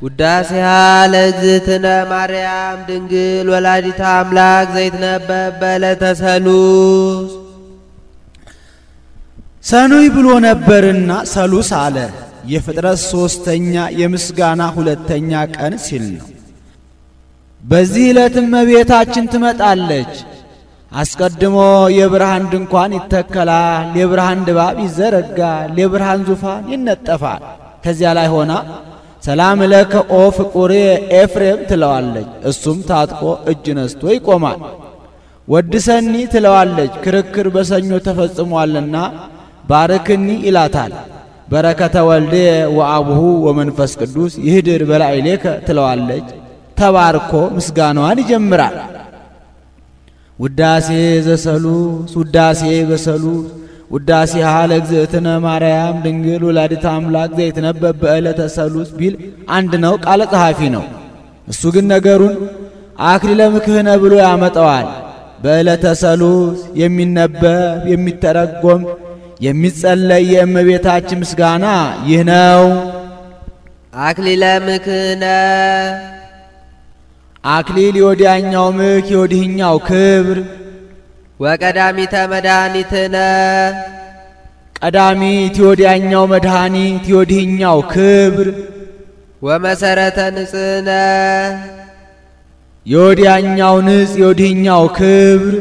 ውዳሴሃ ለእግዝእትነ ማርያም ድንግል ወላዲተ አምላክ ዘይትነበብ በዕለተ ሰሉስ። ሰኑይ ብሎ ነበርና ሰሉስ አለ። የፍጥረት ሶስተኛ የምስጋና ሁለተኛ ቀን ሲል ነው። በዚህ ዕለትም እመቤታችን ትመጣለች። አስቀድሞ የብርሃን ድንኳን ይተከላል፣ የብርሃን ድባብ ይዘረጋል፣ የብርሃን ዙፋን ይነጠፋል። ከዚያ ላይ ሆና ሰላም ለከ ኦ ፍቁሬ ኤፍሬም ትለዋለች። እሱም ታጥቆ እጅ ነስቶ ይቆማል። ወድሰኒ ትለዋለች። ክርክር በሰኞ ተፈጽሟልና ባርክኒ ይላታል። በረከተ ወልዴ ወአቡሁ ወመንፈስ ቅዱስ ይህድር በላዕሌከ ትለዋለች። ተባርኮ ምስጋናዋን ይጀምራል። ውዳሴ ዘሰሉስ ውዳሴ በሰሉስ ውዳሴሃ ለእግዝእትነ ማርያም ድንግል ወላዲተ አምላክ ዘይትነበብ በዕለተ ሰሉስ ቢል አንድ ነው፣ ቃለ ጸሐፊ ነው። እሱ ግን ነገሩን አክሊለ ምክህነ ብሎ ያመጣዋል። በዕለተ ሰሉስ የሚነበብ የሚተረጎም የሚጸለይ የእመቤታችን ምስጋና ይህ ነው። አክሊለ ምክህነ አክሊል የወዲያኛው ምክ የወዲህኛው ክብር። ወቀዳሚተ መድኃኒትነ ቀዳሚት የወዲያኛው መድኃኒት የወዲህኛው ክብር። ወመሰረተ ንጽሕነ የወዲያኛው ንጽ የወዲህኛው ክብር።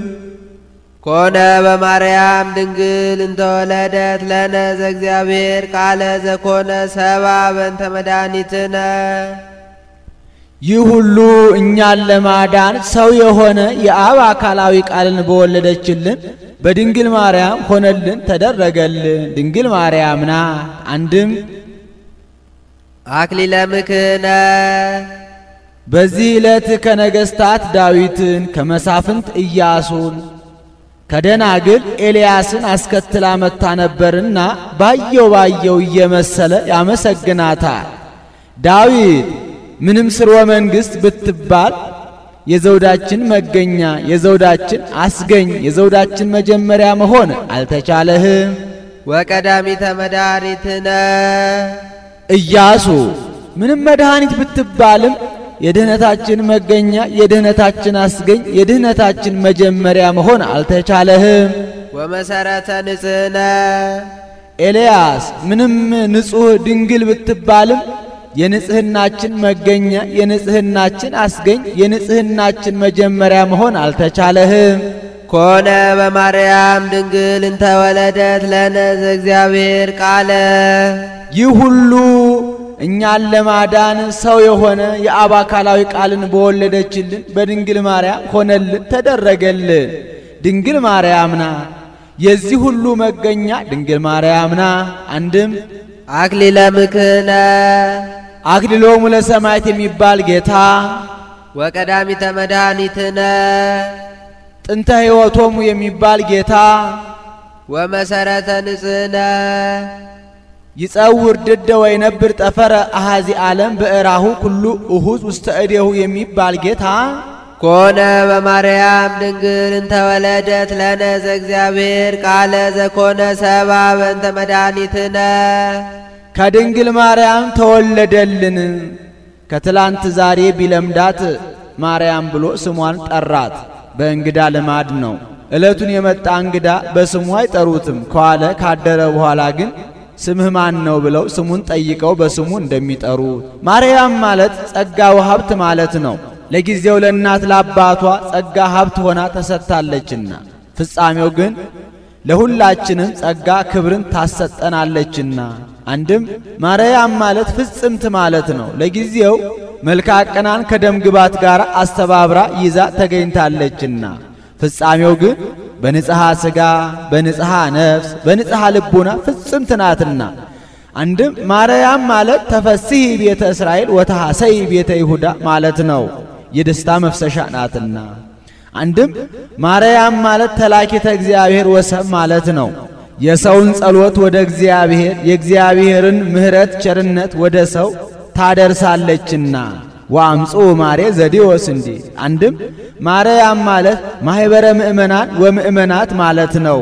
ኮነ በማርያም ድንግል እንተወለደት ለነ ዘእግዚአብሔር ቃለ ዘኮነ ሰባ በእንተ መድኃኒትነ። ይህ ሁሉ እኛን ለማዳን ሰው የሆነ የአብ አካላዊ ቃልን በወለደችልን በድንግል ማርያም ሆነልን ተደረገልን። ድንግል ማርያም ናት። አንድም አክሊለ ምክህነ በዚህ ዕለት ከነገሥታት ዳዊትን ከመሳፍንት ኢያሱን ከደናግል ኤልያስን አስከትላ መታ ነበርና ባየው እየመሰለ ያመሰግናታል። ዳዊት ምንም ስርወ መንግሥት ብትባል የዘውዳችን መገኛ የዘውዳችን አስገኝ የዘውዳችን መጀመሪያ መሆን አልተቻለህም። ወቀዳሚተ መድኃኒትነ ኢያሱ ምንም መድኃኒት ብትባልም የድህነታችን መገኛ የድህነታችን አስገኝ የድህነታችን መጀመሪያ መሆን አልተቻለህም። ወመሰረተ ንጽሕነ ኤልያስ ምንም ንጹሕ ድንግል ብትባልም የንጽህናችን መገኛ የንጽህናችን አስገኝ የንጽህናችን መጀመሪያ መሆን አልተቻለህም። ኮነ በማርያም ድንግል እንተወለደት ለነ ዘእግዚአብሔር ቃለ ይህ ሁሉ እኛን ለማዳን ሰው የሆነ የአብ አካላዊ ቃልን በወለደችልን በድንግል ማርያም ሆነልን ተደረገልን። ድንግል ማርያም ናት። የዚህ ሁሉ መገኛ ድንግል ማርያም ናት። አንድም አክሊለ ምክህነ አክሊሎሙ ለሰማዕት የሚባል ጌታ ወቀዳሚተ መድኃኒትነ ጥንተ ሕይወቶሙ የሚባል ጌታ ወመሰረተ ንጽሕነ ይጸውር ድደ ወይነብር ጠፈረ አሃዚ ዓለም በእራሁ ኩሉ እሁዝ ውስተ እዴሁ የሚባል ጌታ ኮነ በማርያም ድንግል እንተወለደት ለነ ዘእግዚአብሔር ቃለ ዘኮነ ሰባ በእንተ መድኃኒትነ ከድንግል ማርያም ተወለደልን። ከትላንት ዛሬ ቢለምዳት ማርያም ብሎ ስሟን ጠራት። በእንግዳ ልማድ ነው። ዕለቱን የመጣ እንግዳ በስሙ አይጠሩትም። ከዋለ ካደረ በኋላ ግን ስምህ ማን ነው ብለው ስሙን ጠይቀው በስሙ እንደሚጠሩት። ማርያም ማለት ጸጋ ወሀብት ማለት ነው። ለጊዜው ለእናት ለአባቷ ጸጋ ሀብት ሆና ተሰጥታለችና ፍጻሜው ግን ለሁላችንም ጸጋ ክብርን ታሰጠናለችና። አንድም ማርያም ማለት ፍጽምት ማለት ነው። ለጊዜው መልካ ቀናን ከደም ግባት ጋር አስተባብራ ይዛ ተገኝታለችና ፍጻሜው ግን በንጽሐ ሥጋ በንጽሐ ነፍስ በንጽሐ ልቡና ፍጽምት ናትና። አንድም ማርያም ማለት ተፈስሒ ቤተ እስራኤል ወተሐሰይ ቤተ ይሁዳ ማለት ነው። የደስታ መፍሰሻ ናትና። አንድም ማርያም ማለት ተላኪተ እግዚአብሔር ወሰብ ማለት ነው። የሰውን ጸሎት ወደ እግዚአብሔር የእግዚአብሔርን ምሕረት ቸርነት ወደ ሰው ታደርሳለችና ወአምጹ ማሬ ዘዲዎስ እንዲ። አንድም ማርያም ማለት ማህበረ ምእመናን ወምእመናት ማለት ነው።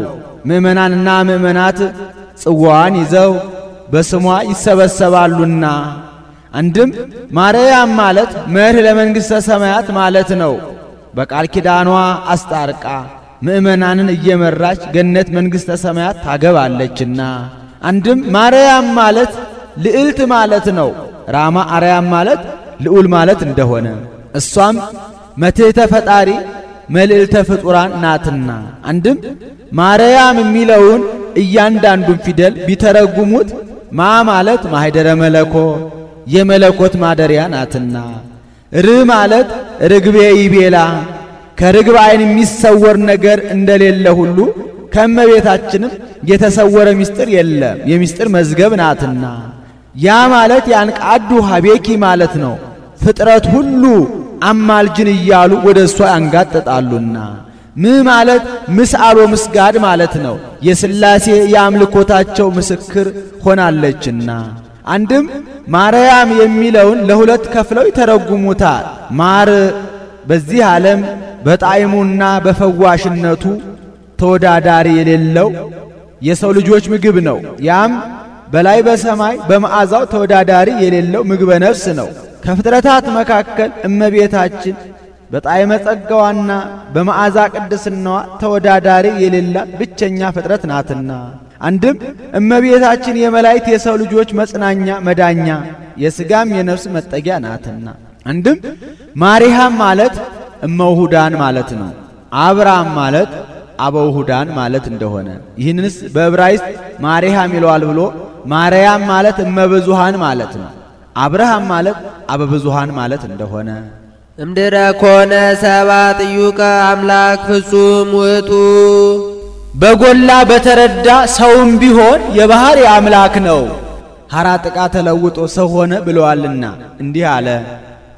ምእመናንና ምእመናት ጽዋን ይዘው በስሟ ይሰበሰባሉና አንድም ማርያም ማለት መርህ ለመንግሥተ ሰማያት ማለት ነው። በቃል ኪዳኗ አስታርቃ ምእመናንን እየመራች ገነት መንግሥተ ሰማያት ታገባለችና። አንድም ማርያም ማለት ልዕልት ማለት ነው። ራማ አርያም ማለት ልዑል ማለት እንደሆነ እሷም መትሕተ ፈጣሪ መልዕልተ ፍጡራን ናትና። አንድም ማርያም የሚለውን እያንዳንዱን ፊደል ቢተረጉሙት ማ ማለት ማኅደረ መለኮት የመለኮት ማደሪያ ናትና፣ ር ማለት ርግቤ ይቤላ ከርግብ ዓይን የሚሰወር ነገር እንደሌለ ሁሉ ከእመቤታችንም የተሰወረ ምስጢር የለም የምስጢር መዝገብ ናትና። ያ ማለት ያንቃዱ ሀቤኪ ማለት ነው። ፍጥረት ሁሉ አማልጅን እያሉ ወደ እሷ ያንጋጥጣሉና። ም ማለት ምስአሎ ምስጋድ ማለት ነው። የሥላሴ የአምልኮታቸው ምስክር ሆናለችና። አንድም ማርያም የሚለውን ለሁለት ከፍለው ይተረጉሙታል። ማር በዚህ ዓለም በጣዕሙና በፈዋሽነቱ ተወዳዳሪ የሌለው የሰው ልጆች ምግብ ነው። ያም በላይ በሰማይ በመዓዛው ተወዳዳሪ የሌለው ምግበ ነፍስ ነው። ከፍጥረታት መካከል እመቤታችን በጣዕመ ጸጋዋና በመዓዛ ቅድስናዋ ተወዳዳሪ የሌላት ብቸኛ ፍጥረት ናትና። አንድም እመቤታችን የመላእክት የሰው ልጆች መጽናኛ መዳኛ የሥጋም የነፍስ መጠጊያ ናትና። አንድም ማርያም ማለት እመውሁዳን ማለት ነው። አብርሃም ማለት አበውሁዳን ማለት እንደሆነ ይህንስ በዕብራይስጥ ማርያም ይለዋል ብሎ ማርያም ማለት እመብዙሃን ማለት ነው። አብርሃም ማለት አበብዙሃን ማለት እንደሆነ እምድረ ኮነ ሰባ ጥዩቀ አምላክ ፍጹም ውእቱ በጎላ በተረዳ ሰውም ቢሆን የባህር አምላክ ነው። ሐራ ጥቃ ተለውጦ ሰው ሆነ ብለዋልና እንዲህ አለ።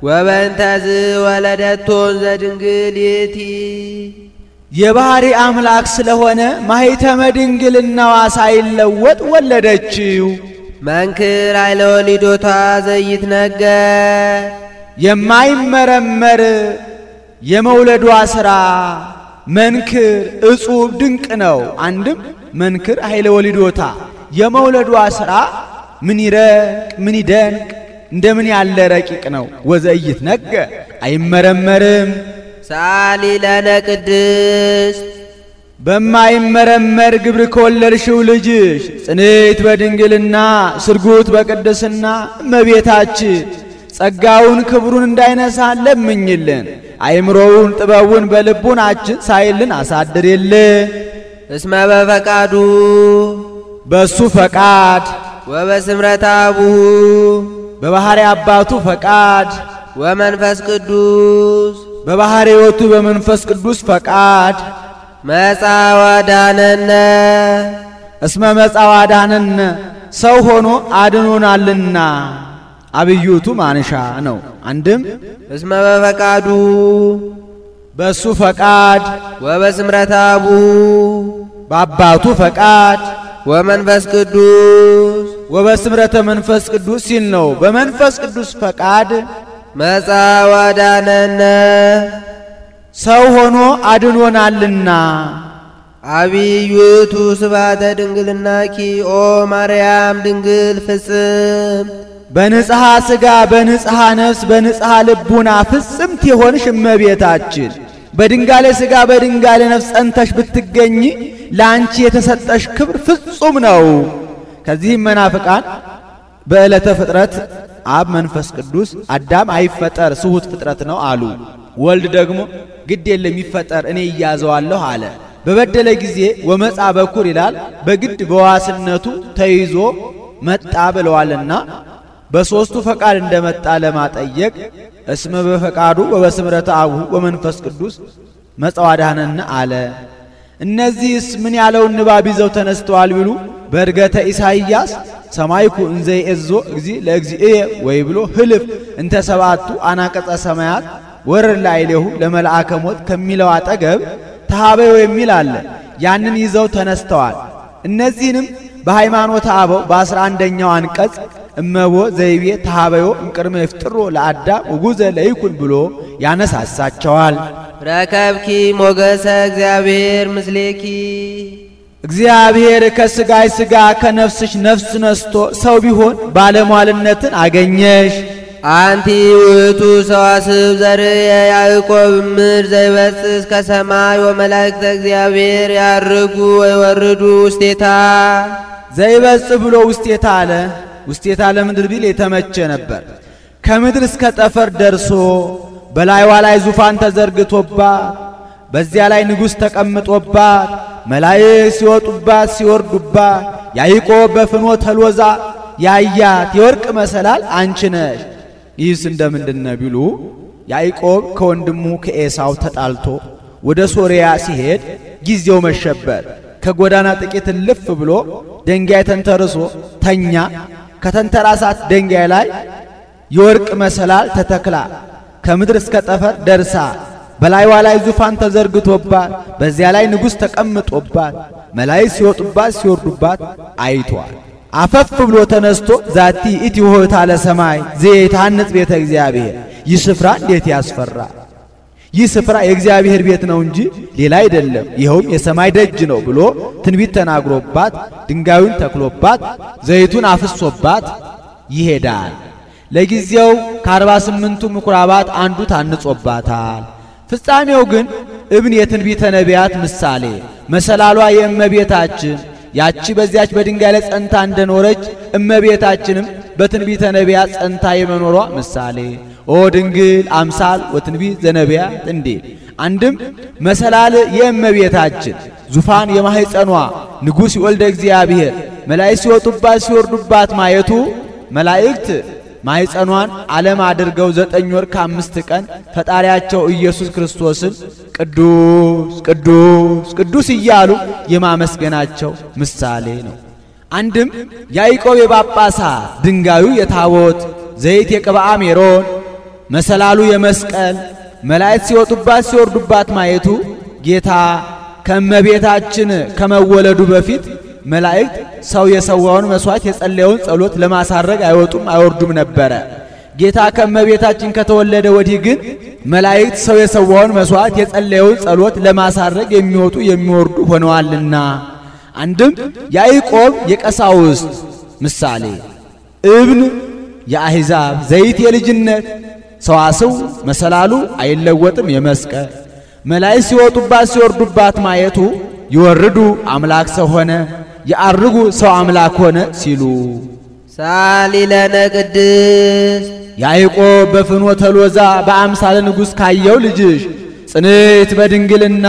ወበእንተዝ ወለደቶን ዘድንግል ይእቲ የባህሪ አምላክ ስለሆነ ማኅተመ ድንግልናዋ ሳይለወጥ ወለደችው። መንክር ኃይለ ወሊዶታ ዘይትነገር የማይመረመር የመውለዷ ሥራ መንክር እጹብ ድንቅ ነው። አንድም መንክር ኃይለ ወሊዶታ የመውለዷ ሥራ ምን ይረቅ ምን ይደንቅ እንደምን ያለ ረቂቅ ነው። ወዘይትነገር አይመረመርም። ሳሊ ለነ ቅድስት በማይመረመር ግብር ከወለድሽው ልጅሽ ጽንዕት በድንግልና ስርጉት በቅድስና እመቤታችን ጸጋውን ክብሩን እንዳይነሳ ለምኝልን። አይምሮውን ጥበቡን በልቡናችን ሳይልን አሳድርልን። እስመ በፈቃዱ በሱ ፈቃድ ወበስምረት አቡሁ በባህሪ አባቱ ፈቃድ ወመንፈስ ቅዱስ በባህሪ ሕይወቱ በመንፈስ ቅዱስ ፈቃድ መጻ ወዳነነ እስመ መጻ ወዳነነ ሰው ሆኖ አድኖናልና አብዩቱ ማንሻ ነው። አንድም እስመ በፈቃዱ በሱ ፈቃድ ወበስምረት አቡሁ በአባቱ ፈቃድ ወመንፈስ ቅዱስ ወበስምረተ መንፈስ ቅዱስ ሲል ነው። በመንፈስ ቅዱስ ፈቃድ መጻ ወዳነነ ሰው ሆኖ አድኖናልና። አብዩቱ ስብሐተ ድንግልናኪ ኦ ማርያም ድንግል ፍጽም በንጽሐ ሥጋ በንጽሐ ነፍስ በንጽሐ ልቡና ፍጽምት የሆንሽ እመቤታችን በድንጋሌ ሥጋ በድንጋሌ ነፍስ ጸንተሽ ብትገኝ ለአንቺ የተሰጠሽ ክብር ፍጹም ነው። ከዚህም መናፍቃን በዕለተ ፍጥረት አብ መንፈስ ቅዱስ አዳም አይፈጠር ስሁት ፍጥረት ነው አሉ። ወልድ ደግሞ ግድ የለም ይፈጠር እኔ እያዘዋለሁ አለ። በበደለ ጊዜ ወመጻ በኩር ይላል በግድ በዋስነቱ ተይዞ መጣ ብለዋልና በሶስቱ ፈቃድ እንደመጣ ለማጠየቅ እስመ በፈቃዱ ወበስምረተ አቡሁ ወመንፈስ ቅዱስ መጻ ወዳነነ አለ። እነዚህስ ምን ያለውን ንባብ ይዘው ተነስተዋል ቢሉ በእርገተ ኢሳይያስ ሰማይኩ እንዘ ይእዞ እግዚ ለእግዚእየ ወይ ብሎ ህልፍ እንተ ሰባቱ አናቀጸ ሰማያት ወረድ ላዕሌሁ ለመልአከ ሞት ከሚለው አጠገብ ተሃበዮ የሚል አለ። ያንን ይዘው ተነስተዋል። እነዚህንም በሃይማኖተ አበው በ11ኛው አንቀጽ እመቦ ዘይቤ ተሃበዮ እምቅድመ ይፍጥሮ ለአዳም ወጉዘ ለይኩን ብሎ ያነሳሳቸዋል። ረከብኪ ሞገሰ እግዚአብሔር ምስሌኪ እግዚአብሔር ከሥጋይ ሥጋ ከነፍስሽ ነፍስ ነስቶ ሰው ቢሆን ባለሟልነትን አገኘሽ። አንቲ ውእቱ ሰዋስብ ዘርየ ያዕቆብ እምድር ዘይበጽሕ ከሰማይ ወመላእክተ እግዚአብሔር ያርጉ ወይወርዱ ውስቴታ። ዘይበጽሕ ብሎ ውስቴታ አለ። ውስቴታ ለምድር ቢል የተመቸ ነበር። ከምድር እስከ ጠፈር ደርሶ በላይዋ ላይ ዙፋን ተዘርግቶባት በዚያ ላይ ንጉሥ ተቀምጦባት መላእክት ሲወጡባት ሲወርዱባት ያዕቆብ በፍኖተ ሎዛ ያያት የወርቅ መሰላል አንቺ ነሽ። ይህስ እንደምንድነው ቢሉ ያዕቆብ ከወንድሙ ከኤሳው ተጣልቶ ወደ ሶርያ ሲሄድ ጊዜው መሸበት። ከጎዳና ጥቂት ልፍ ብሎ ደንጋይ ተንተርሶ ተኛ። ከተንተራሳት ደንጋይ ላይ የወርቅ መሰላል ተተክላ ከምድር እስከ ጠፈር ደርሳ በላይዋ ላይ ዙፋን ተዘርግቶባት በዚያ ላይ ንጉሥ ተቀምጦባት መላእክት ሲወጡባት ሲወርዱባት አይቷል። አፈፍ ብሎ ተነስቶ ዛቲ ኢቲ ሆታ ለሰማይ ዘይታንጽ ቤተ እግዚአብሔር። ይህ ስፍራ እንዴት ያስፈራ! ይህ ስፍራ የእግዚአብሔር ቤት ነው እንጂ ሌላ አይደለም፣ ይኸውም የሰማይ ደጅ ነው ብሎ ትንቢት ተናግሮባት ድንጋዩን ተክሎባት ዘይቱን አፍሶባት ይሄዳል። ለጊዜው ከ48ቱ ምኩራባት አንዱ ታንጾባታል። ፍጻሜው ግን እብን የትንቢተ ነቢያት ምሳሌ መሰላሏ የእመቤታችን ያቺ በዚያች በድንጋይ ላይ ጸንታ እንደኖረች እመቤታችንም በትንቢተ ነቢያት ጸንታ የመኖሯ ምሳሌ ኦ ድንግል አምሳል ወትንቢት ዘነቢያት እንዲል። አንድም መሰላል የእመቤታችን ዙፋን የማህፀኗ ንጉሥ ወልደ እግዚአብሔር መላእክት ሲወጡባት ሲወርዱባት ማየቱ መላእክት ማህፀኗን ዓለም አድርገው 9 ወር ከ5 ቀን ፈጣሪያቸው ኢየሱስ ክርስቶስን ቅዱስ ቅዱስ ቅዱስ እያሉ የማመስገናቸው ምሳሌ ነው። አንድም ያዕቆብ የጳጳሳት ድንጋዩ የታቦት ዘይት የቅብአ ሜሮን መሰላሉ የመስቀል መላእክት ሲወጡባት ሲወርዱባት ማየቱ ጌታ ከእመቤታችን ከመወለዱ በፊት መላእክት ሰው የሰዋውን መስዋዕት የጸለየውን ጸሎት ለማሳረግ አይወጡም አይወርዱም ነበረ። ጌታ ከእመቤታችን ከተወለደ ወዲህ ግን መላእክት ሰው የሰዋውን መስዋዕት የጸለየውን ጸሎት ለማሳረግ የሚወጡ የሚወርዱ ሆነዋልና። አንድም ያዕቆብ የቀሳውስት ምሳሌ እብን የአሕዛብ ዘይት የልጅነት ሰዋስው መሰላሉ አይለወጥም የመስቀል መላእክት ሲወጡባት ሲወርዱባት ማየቱ ይወርዱ አምላክ ሰው ሆነ ያርጉ ሰው አምላክ ሆነ ሲሉ ሳሊለነ ቅድስት ያዕቆብ በፍኖተ ሎዛ በአምሳለ ንጉሥ ካየው ልጅሽ ጽንዕት በድንግልና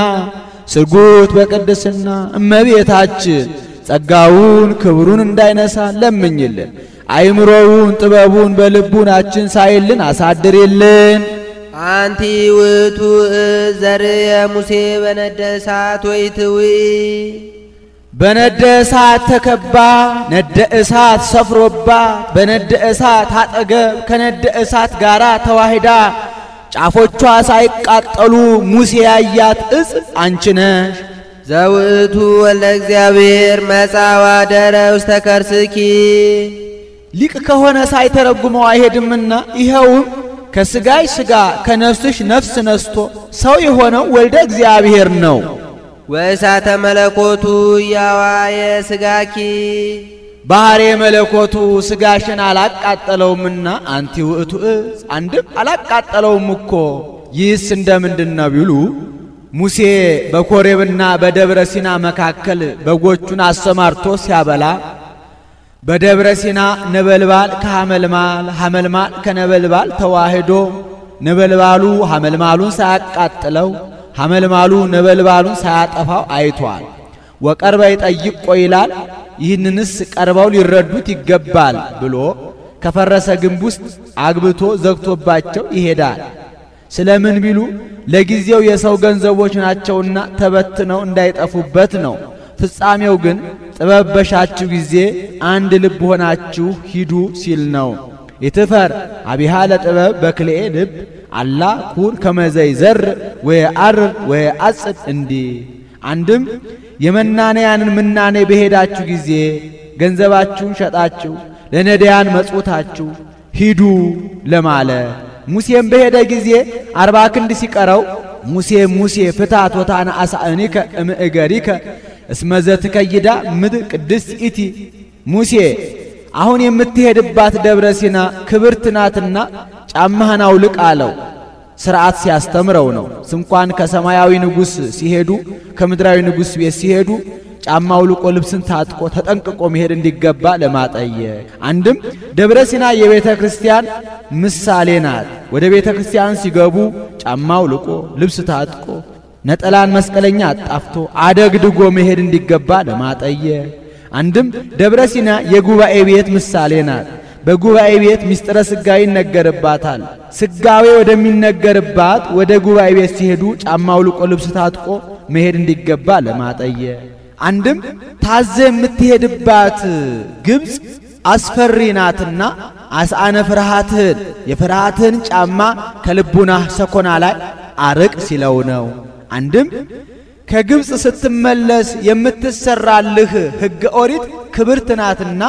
ስርጉት በቅድስና እመቤታችን ጸጋውን ክብሩን እንዳይነሳ ለምኝልን። አይምሮውን ጥበቡን በልቡናችን ሳይልን አሳድርልን። አንቲ ውእቱ ዘርየ ሙሴ በነደ እሳት ወይትዊ በነደ እሳት ተከባ ነደ እሳት ሰፍሮባት በነደ እሳት አጠገብ ከነደ እሳት ጋራ ተዋሂዳ ጫፎቿ ሳይቃጠሉ ሙሴ ያያት እጽ አንቺ ነሽ። ዘውእቱ ወልደ እግዚአብሔር መጻ ወአደረ ውስተ ከርስኪ ሊቅ ከሆነ ሳይተረጉመው አይሄድምና ይኸውም ከሥጋይ ሥጋ ከነፍስሽ ነፍስ ነስቶ ሰው የሆነው ወልደ እግዚአብሔር ነው። ወእሳተ መለኮቱ ያዋየ ሥጋኪ ባህሬ መለኮቱ ሥጋሽን አላቃጠለውምና አንቲ ውእቱ እጽ አንድም አላቃጠለውም እኮ። ይህስ እንደምንድነው ቢሉ ሙሴ በኮሬብና በደብረ ሲና መካከል በጎቹን አሰማርቶ ሲያበላ በደብረ ሲና ነበልባል ከሐመልማል ሐመልማል ከነበልባል ተዋህዶ ነበልባሉ ሐመልማሉን ሳያቃጥለው ሐመልማሉ ነበልባሉን ሳያጠፋው አይቷል። ወቀርበ ይጠይቆ ይላል። ይህንንስ ቀርበው ሊረዱት ይገባል ብሎ ከፈረሰ ግንብ ውስጥ አግብቶ ዘግቶባቸው ይሄዳል። ስለምን ቢሉ ለጊዜው የሰው ገንዘቦች ናቸውና ተበትነው እንዳይጠፉበት ነው። ፍጻሜው ግን ጥበብ በሻችሁ ጊዜ አንድ ልብ ሆናችሁ ሂዱ ሲል ነው። ይትፈር አቢሃ ለጥበብ በክልኤ ልብ አላ ኩን ከመዘይ ዘር ወየአርር ወየአጽድ እንዲ። አንድም የመናንያንን ምናኔ በሄዳችሁ ጊዜ ገንዘባችሁን ሸጣችሁ ለነዳያን መጽውታችሁ ሂዱ ለማለ። ሙሴም በሄደ ጊዜ 40 ክንድ ሲቀረው ሙሴ ፍታት ወታነ አሳእኒከ እምእገሪከ እስመዘት ከይዳ ምድር ቅድስት ኢቲ ሙሴ አሁን የምትሄድባት ደብረ ሲና ክብርት ናትና ጫማህን አውልቅ አለው። ሥርዓት ሲያስተምረው ነው። እንኳን ከሰማያዊ ንጉሥ ሲሄዱ ከምድራዊ ንጉሥ ቤት ሲሄዱ ጫማ አውልቆ ልብስን ታጥቆ ተጠንቅቆ መሄድ እንዲገባ ለማጠየቅ። አንድም ደብረ ሲና የቤተ ክርስቲያን ምሳሌ ናት። ወደ ቤተ ክርስቲያን ሲገቡ ጫማ አውልቆ ልብስ ታጥቆ ነጠላን መስቀለኛ አጣፍቶ አደግድጎ መሄድ እንዲገባ ለማጠየቅ። አንድም ደብረ ሲና የጉባኤ ቤት ምሳሌ ናት። በጉባኤ ቤት ምስጢረ ሥጋዌ ይነገርባታል። ሥጋዌ ወደሚነገርባት ወደ ጉባኤ ቤት ሲሄዱ ጫማ አውልቆ ልብስ ታጥቆ መሄድ እንዲገባ ለማጠየቅ። አንድም ታዘ የምትሄድባት ግብፅ አስፈሪ ናትና አስአነ ፍርሃትህን የፍርሃትህን ጫማ ከልቡናህ ሰኮና ላይ አርቅ ሲለው ነው። አንድም ከግብፅ ስትመለስ የምትሰራልህ ሕገ ኦሪት ክብርት ናትና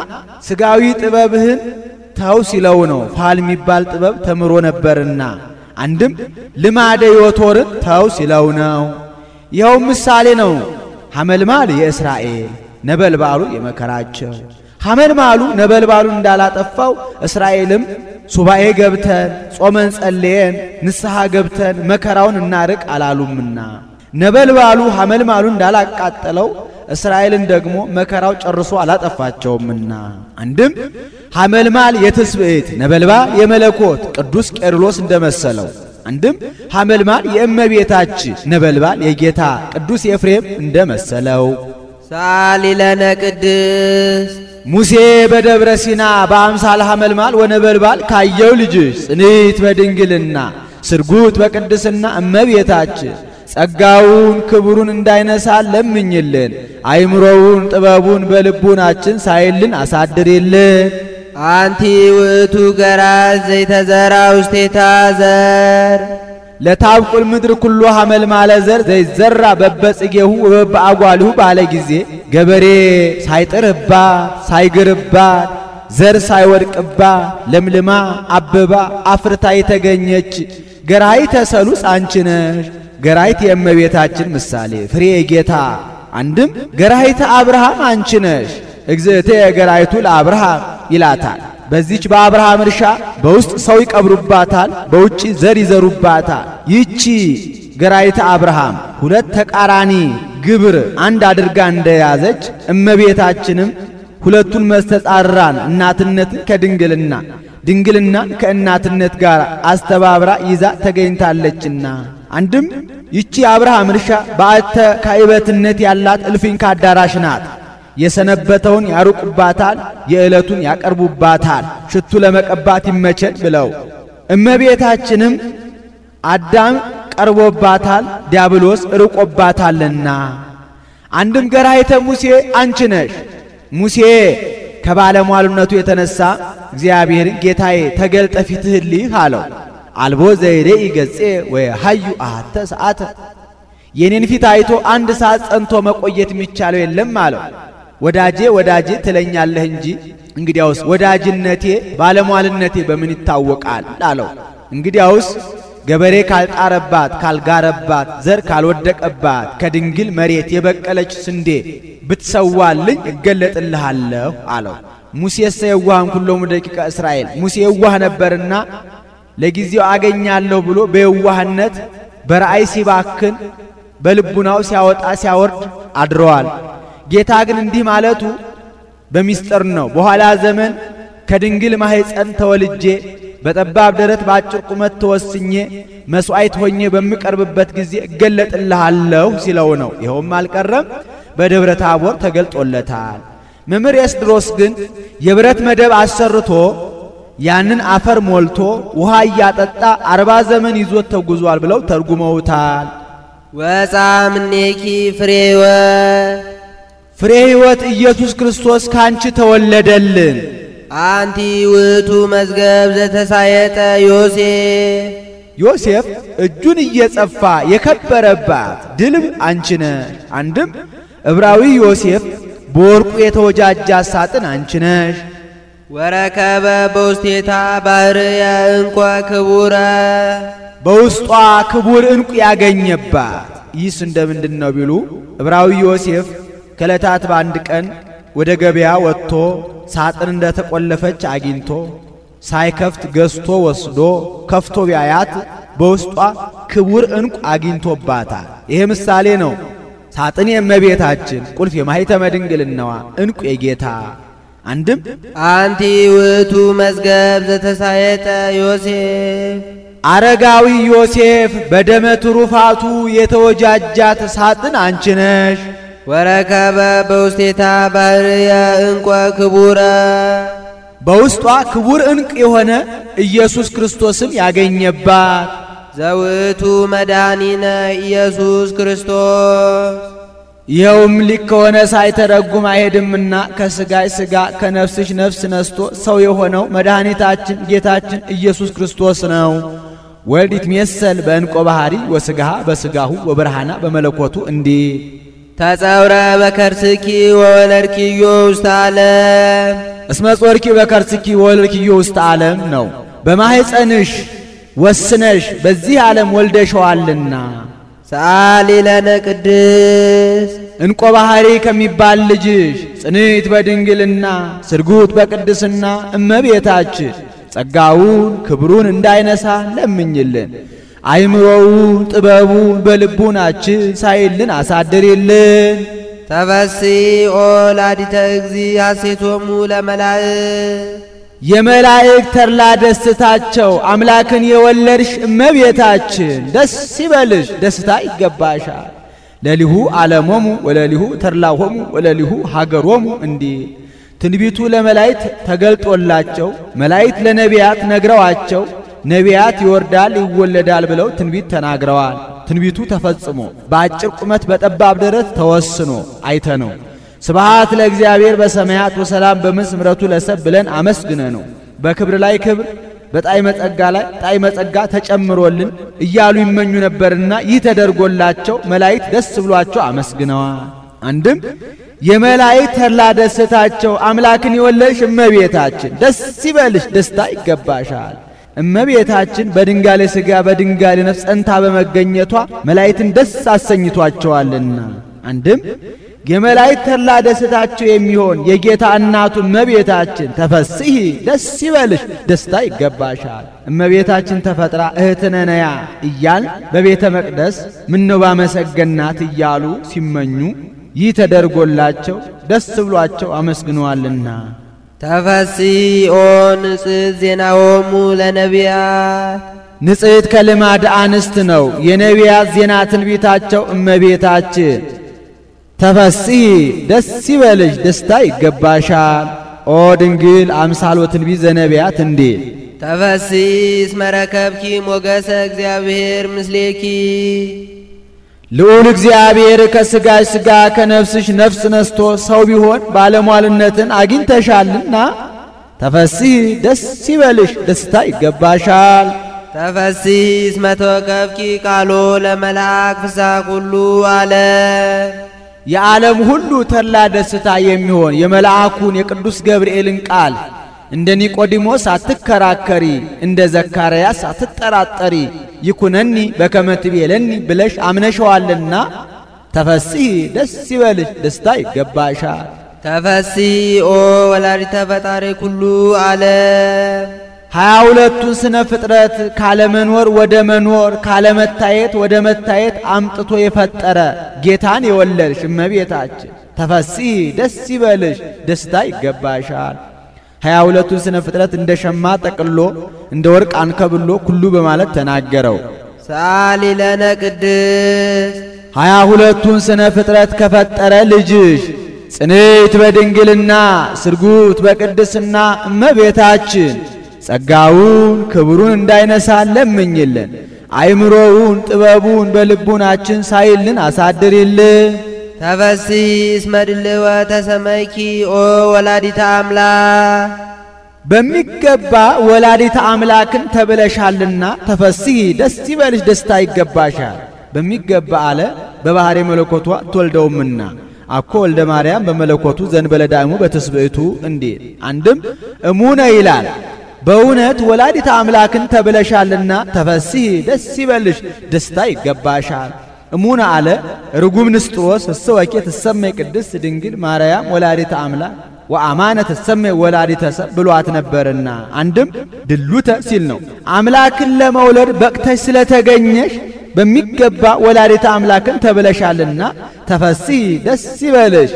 ሥጋዊ ጥበብህን ተው ሲለው ነው። ፋል የሚባል ጥበብ ተምሮ ነበርና። አንድም ልማደ ዮቶርን ተው ሲለው ነው። ይኸው ምሳሌ ነው። ሐመልማል የእስራኤል ነበልባሉ የመከራቸው። ሐመልማሉ ነበልባሉ እንዳላጠፋው እስራኤልም ሱባኤ ገብተን ጾመን ጸልየን ንስሐ ገብተን መከራውን እናርቅ አላሉምና ነበልባሉ ሐመልማሉ እንዳላቃጠለው እስራኤልን ደግሞ መከራው ጨርሶ አላጠፋቸውምና። አንድም ሐመልማል የትስብእት ነበልባል የመለኮት ቅዱስ ቄርሎስ እንደመሰለው። አንድም ሐመልማል የእመቤታችን ነበልባል የጌታ ቅዱስ ኤፍሬም እንደመሰለው። ሳሊለነ ቅድስት ሙሴ በደብረ ሲና በአምሳለ ሐመልማል ወነበልባል ካየው ልጅሽ ጽንዕት በድንግልና ስርጉት በቅድስና እመቤታችን ጸጋውን ክብሩን እንዳይነሳ ለምኝልን። አይምሮውን ጥበቡን በልቡናችን ሳይልን አሳድሪልን። አንቲ ውእቱ ገራዝ ዘይተዘራ ውስቴታ ዘር ለታብቁል ምድር ኩሉ ሐመልማለ ዘር ዘይዘራ በበጽጌሁ ወበአጓልሁ ባለ ጊዜ ገበሬ ሳይጥርባት ሳይግርባት ዘር ሳይወድቅባት ለምልማ አበባ አፍርታ የተገኘች ገራይተ ሰሉስ አንቺ ነሽ። ገራይት የእመቤታችን ምሳሌ ፍሬ ጌታ። አንድም ገራይተ አብርሃም አንቺ ነሽ። እግዝእቴ ገራይቱ ለአብርሃም ይላታል። በዚች በአብርሃም እርሻ በውስጥ ሰው ይቀብሩባታል፣ በውጪ ዘር ይዘሩባታል። ይቺ ገራይተ አብርሃም ሁለት ተቃራኒ ግብር አንድ አድርጋ እንደያዘች እመቤታችንም ሁለቱን መስተጻራን እናትነትን ከድንግልና ድንግልናን ከእናትነት ጋር አስተባብራ ይዛ ተገኝታለችና። አንድም ይቺ አብርሃም እርሻ በአተ ካይበትነት ያላት እልፍኝ ካዳራሽ ናት። የሰነበተውን ያሩቁባታል፣ የዕለቱን ያቀርቡባታል፣ ሽቱ ለመቀባት ይመቸን ብለው። እመቤታችንም አዳም ቀርቦባታል፣ ዲያብሎስ ርቆባታልና። አንድም ገራይተ ሙሴ አንቺ ነሽ። ሙሴ ከባለሟልነቱ የተነሳ እግዚአብሔርን ጌታዬ ተገልጠ ፊትህን ልይህ አለው። አልቦ ዘይሬኢ ገጼ ወየሐዩ አሐተ ሰዓተ የኔን ፊት አይቶ አንድ ሰዓት ጸንቶ መቆየት የሚቻለው የለም አለው። ወዳጄ ወዳጄ ትለኛለህ እንጂ እንግዲያውስ ወዳጅነቴ ባለሟልነቴ በምን ይታወቃል አለው። እንግዲያውስ ገበሬ ካልጣረባት ካልጋረባት ዘር ካልወደቀባት ከድንግል መሬት የበቀለች ስንዴ ብትሰዋልኝ እገለጥልሃለሁ አለው። ሙሴሰ የዋህም ኩሎሙ ደቂቀ እስራኤል ሙሴ የዋህ ነበርና ለጊዜው አገኛለሁ ብሎ በየዋህነት በራእይ ሲባክን በልቡናው ሲያወጣ ሲያወርድ አድረዋል። ጌታ ግን እንዲህ ማለቱ በሚስጥር ነው። በኋላ ዘመን ከድንግል ማህፀን ተወልጄ በጠባብ ደረት በአጭር ቁመት ተወስኜ መስዋዕት ሆኜ በሚቀርብበት ጊዜ እገለጥልሃለሁ ሲለው ነው። ይኸውም አልቀረም በደብረ ታቦር ተገልጦለታል። መምህር ኤስድሮስ ግን የብረት መደብ አሰርቶ ያንን አፈር ሞልቶ ውሃ እያጠጣ 40 ዘመን ይዞት ተጉዟል ብለው ተርጉመውታል። ወጻምኔኪ ፍሬ ሕይወት ኢየሱስ ክርስቶስ ካንቺ ተወለደልን። አንቲ ውእቱ መዝገብ ዘተሳየጠ ዮሴፍ እጁን እየጸፋ የከበረባት ድልብ አንቺ ነሽ። አንድም ዕብራዊ ዮሴፍ በወርቁ የተወጃጃ ሳጥን አንቺ ነሽ። ወረከበ በውስቴታ ባህርየ እንኳ ክቡረ በውስጧ ክቡር እንቁ ያገኘባት። ይህስ እንደምንድን ነው ቢሉ ዕብራዊ ዮሴፍ ከዕለታት በአንድ ቀን ወደ ገበያ ወጥቶ ሳጥን እንደተቆለፈች አግኝቶ ሳይከፍት ገዝቶ ወስዶ ከፍቶ ቢያያት በውስጧ ክቡር ዕንቁ አግኝቶባታል። ይሄ ምሳሌ ነው። ሳጥን የእመቤታችን፣ ቁልፍ የማኅተመ ድንግልናዋ፣ ዕንቁ የጌታ። አንድም አንቲ ውእቱ መዝገብ ዘተሳየጠ ዮሴፍ አረጋዊ ዮሴፍ በደመ ትሩፋቱ የተወጃጃት ሳጥን አንቺ ነሽ። ወረከበ በውስቴታ ባሕርየ ዕንቈ ክቡረ በውስጧ ክቡር ዕንቅ የሆነ ኢየሱስ ክርስቶስም ያገኘባት ዘውእቱ መድኃኒነ ኢየሱስ ክርስቶስ ይኸውም ሊክ ከሆነ ሳይተረጉም አይሄድምና ከሥጋይ ሥጋ ከነፍስሽ ነፍስ ነስቶ ሰው የሆነው መድኃኒታችን ጌታችን ኢየሱስ ክርስቶስ ነው። ወልድ ይትሜሰል በዕንቆ ባሕሪ ወሥጋሃ በሥጋሁ ወብርሃና በመለኮቱ እንዲህ ተጸውረ በከርስኪ ወወለድኪዮ ውስተ ዓለም እስመ ጾርኪ በከርስኪ ወወለድኪዮ ውስተ ዓለም ነው። በማኅፀንሽ ወስነሽ በዚህ ዓለም ወልደሸዋልና። ሰአሊ ለነ ቅድስት ዕንቆ ባሕሪ ከሚባል ልጅሽ ጽንዕት በድንግልና ስርጉት በቅድስና እመቤታችን ጸጋውን ክብሩን እንዳይነሳ ለምኝልን። አይምሮውን ጥበቡን በልቡናችን ሳይልን አሳድሪልን። ተፈሥሒ ኦ ወላዲተ እግዚእ ሐሴቶሙ ለመላእክት የመላእክት ተድላ ደስታቸው አምላክን የወለድሽ እመቤታችን ደስ ይበልሽ፣ ደስታ ይገባሻል። ለሊሁ ዓለሞሙ ወለሊሁ ተድላሆሙ ወለሊሁ ሀገሮሙ እንዲህ ትንቢቱ ለመላእክት ተገልጦላቸው መላእክት ለነቢያት ነግረዋቸው ነቢያት ይወርዳል ይወለዳል ብለው ትንቢት ተናግረዋል። ትንቢቱ ተፈጽሞ በአጭር ቁመት በጠባብ ደረት ተወስኖ አይተነው። ስብሐት ለእግዚአብሔር በሰማያት ወሰላም በምድር ምሕረቱ ለሰብ ብለን አመስግነ ነው። በክብር ላይ ክብር በጣዕመ ጸጋ ላይ ጣዕመ ጸጋ ተጨምሮልን እያሉ ይመኙ ነበርና ይህ ተደርጎላቸው መላእክት ደስ ብሏቸው አመስግነዋል። አንድም የመላእክት ተድላ ደስታቸው አምላክን የወለድሽ እመቤታችን ደስ ይበልሽ፣ ደስታ ይገባሻል። እመቤታችን በድንጋሌ ሥጋ በድንጋሌ ነፍስ ጸንታ በመገኘቷ መላእክትን ደስ አሰኝቷቸዋልና። አንድም የመላእክት ተድላ ደስታቸው የሚሆን የጌታ እናቱ እመቤታችን ተፈሥሒ ደስ ይበልሽ፣ ደስታ ይገባሻል። እመቤታችን ተፈጥራ እህትነ ነያ እያል በቤተ መቅደስ ምነው ባመሰገናት እያሉ ሲመኙ ይህ ተደርጎላቸው ደስ ብሏቸው አመስግነዋልና። ተፈሥሒ ኦ ንጽሕት ዜናሆሙ ለነቢያት ንጽሕት ከልማድ አንስት ነው። የነቢያት ዜና ትንቢታቸው እመቤታችን ተፈሥሒ ደስ ይበልሽ፣ ደስታ ይገባሻል። ኦ ድንግል አምሳሎ ትንቢት ዘነቢያት እንዲል ተፈሥሒ እስመ ረከብኪ ሞገሰ እግዚአብሔር ምስሌኪ ልዑል እግዚአብሔር ከሥጋሽ ሥጋ ከነፍስሽ ነፍስ ነስቶ ሰው ቢሆን ባለሟልነትን አግኝተሻልና ተፈሥሒ ደስ ይበልሽ፣ ደስታ ይገባሻል። ተፈሥሒ እስመ ተወከፍኪ ቃሎ ለመልአክ ፍስሐ ኩሉ ዓለም የዓለም ሁሉ ተድላ ደስታ የሚሆን የመልአኩን የቅዱስ ገብርኤልን ቃል እንደ ኒቆዲሞስ አትከራከሪ፣ እንደ ዘካርያስ አትጠራጠሪ፣ ይኩነኒ በከመ ትቤለኒ ብለሽ አምነሸዋልና ተፈሥሒ ደስ ይበልሽ፣ ደስታ ይገባሻል። ተፈሥሒ ኦ ወላዲተ ፈጣሪ ኩሉ ዓለም 22ቱን ስነ ፍጥረት ካለመኖር ወደ መኖር ካለመታየት ወደ መታየት አምጥቶ የፈጠረ ጌታን የወለድሽ እመቤታችን ተፈሥሒ ደስ ይበልሽ፣ ደስታ ይገባሻል። 22ቱን ስነ ፍጥረት እንደ ሸማ ጠቅሎ እንደ ወርቅ አንከብሎ ኩሉ በማለት ተናገረው። ሰአሊ ለነ ቅድስት 22ቱን ስነ ፍጥረት ከፈጠረ ልጅሽ ጽንዕት በድንግልና ስርጉት በቅድስና እመቤታችን ጸጋውን ክብሩን እንዳይነሳ ለምኝልን። አይምሮውን ጥበቡን በልቡናችን ሳይልን አሳድሪልን። ተፈሥሒ እስመ ድልወ ተሰመይኪ ኦ ወላዲተ አምላክ በሚገባ ወላዲተ አምላክን ተብለሻልና ተፈሥሒ ደስ ይበልሽ፣ ደስታ ይገባሻል። በሚገባ አለ በባሕሪ መለኮቷ ትወልደውምና አኮ ወልደ ማርያም በመለኮቱ ዘንበለ ዳይሙ በትስብእቱ እንዲል። አንድም እሙነ ይላል በእውነት ወላዲተ አምላክን ተብለሻልና ተፈሥሒ ደስ ይበልሽ፣ ደስታ ይገባሻል። እሙነ አለ ርጉም ንስጥሮስ እሰወኬ ትሰመይ ቅድስት ድንግል ማርያም ወላዲተ አምላክ ወአማነ ትሰመይ ወላዲተ ሰብ ብሏት ነበርና አንድም ድሉተ ሲል ነው። አምላክን ለመውለድ በቅተሽ ስለተገኘሽ በሚገባ ወላዲተ አምላክን ተብለሻልና ተፈሥሒ ደስ ይበልሽ፣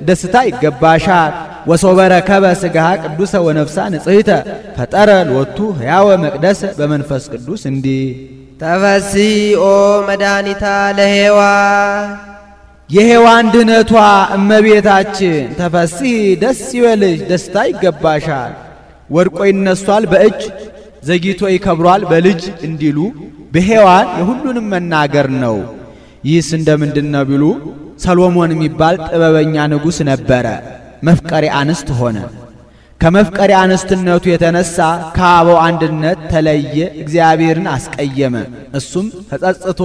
ደስታ ይገባሻል። ወሶበረከበ ሥጋሃ ቅዱሰ ወነፍሳ ንጽሕተ ፈጠረ ሎቱ ሕያወ መቅደሰ በመንፈስ ቅዱስ እንዲህ ተፈሥሒ ኦ መድኃኒታ ለሔዋን የሔዋን ድኅነቷ እመቤታችን ተፈሥሒ ደስ ይበልሽ፣ ደስታ ይገባሻል። ወድቆ ይነሷል በእጅ ዘግይቶ ይከብሯል በልጅ እንዲሉ በሔዋን የሁሉንም መናገር ነው። ይህስ እንደምንድነው ቢሉ ሰሎሞን የሚባል ጥበበኛ ንጉሥ ነበረ። መፍቀሪ አንስት ሆነ። ከመፍቀሪ አንስትነቱ የተነሳ ከአበው አንድነት ተለየ፣ እግዚአብሔርን አስቀየመ። እሱም ተጸጽቶ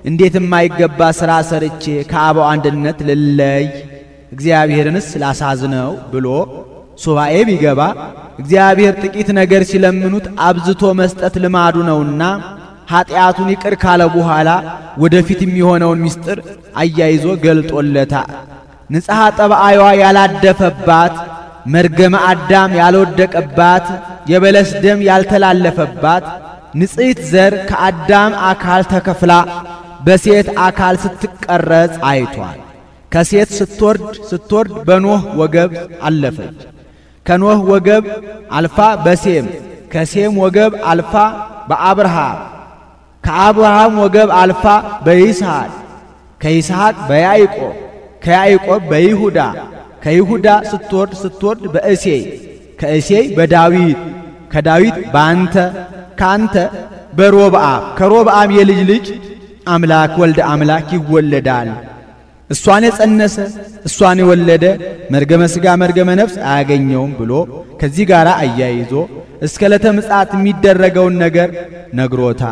እንዴት የማይገባ ሥራ ሰርቼ ከአበው አንድነት ልለይ እግዚአብሔርንስ ላሳዝነው ብሎ ሱባኤ ቢገባ እግዚአብሔር ጥቂት ነገር ሲለምኑት አብዝቶ መስጠት ልማዱ ነውና ኃጢአቱን ይቅር ካለ በኋላ ወደፊት የሚሆነውን ምስጢር አያይዞ ገልጦለታል። ንጽሐ ጠባይዋ ያላደፈባት፣ መርገመ አዳም ያልወደቀባት፣ የበለስ ደም ያልተላለፈባት ንጽሕት ዘር ከአዳም አካል ተከፍላ በሴት አካል ስትቀረጽ አይቷል። ከሴት ስትወርድ በኖህ ወገብ አለፈች። ከኖህ ወገብ አልፋ በሴም፣ ከሴም ወገብ አልፋ በአብርሃም፣ ከአብርሃም ወገብ አልፋ በይስሐቅ፣ ከይስሐቅ በያዕቆብ፣ ከያዕቆብ በይሁዳ፣ ከይሁዳ ስትወርድ በእሴይ፣ ከእሴይ በዳዊት፣ ከዳዊት በአንተ፣ ከአንተ በሮብዓም፣ ከሮብዓም የልጅ ልጅ አምላክ ወልደ አምላክ ይወለዳል። እሷን የጸነሰ እሷን የወለደ መርገመ ሥጋ መርገመ ነፍስ አያገኘውም ብሎ ከዚህ ጋር አያይዞ እስከ ዕለተ ምጽአት የሚደረገውን ነገር ነግሮታ።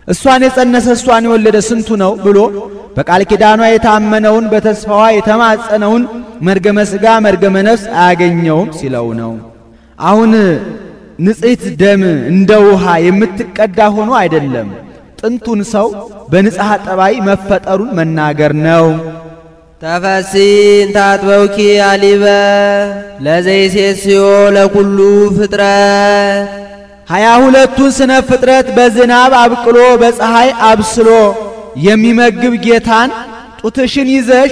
እሷን የጸነሰ እሷን የወለደ ስንቱ ነው ብሎ በቃል ኪዳኗ የታመነውን በተስፋዋ የተማጸነውን መርገመ ሥጋ መርገመ ነፍስ አያገኘውም ሲለው ነው። አሁን ንጽሕት ደም እንደ ውሃ የምትቀዳ ሆኖ አይደለም። ጥንቱን ሰው በንጽሐ ጠባይ መፈጠሩን መናገር ነው። ተፈሥሒ እንተ አጥበውኪ አሊበ ለዘይሴስዮ ለኩሉ ፍጥረት 22ቱን ስነ ፍጥረት በዝናብ አብቅሎ በፀሐይ አብስሎ የሚመግብ ጌታን ጡትሽን ይዘሽ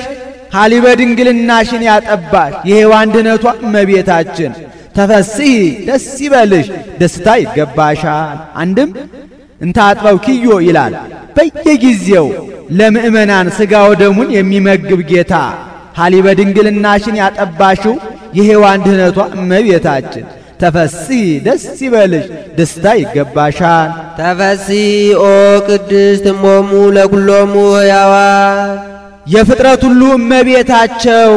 ሀሊበ ድንግልናሽን ያጠባሽ የሔዋን ድኅነቷ እመቤታችን ተፈሥሒ ደስ ይበልሽ፣ ደስታ ይገባሻል። አንድም እንተ አጥበውኪዮ ይላል። በየጊዜው ለምእመናን ሥጋ ወደሙን የሚመግብ ጌታ ሀሊበ ድንግልናሽን ያጠባሽው የሔዋን ድኅነቷ እመቤታችን ተፈሥሒ ደስ ይበልሽ፣ ደስታ ይገባሻል። ተፈሥሒ ኦ ቅድስት እሞሙ ለኩሎሙ ሕያዋን የፍጥረት ሁሉ እመቤታቸው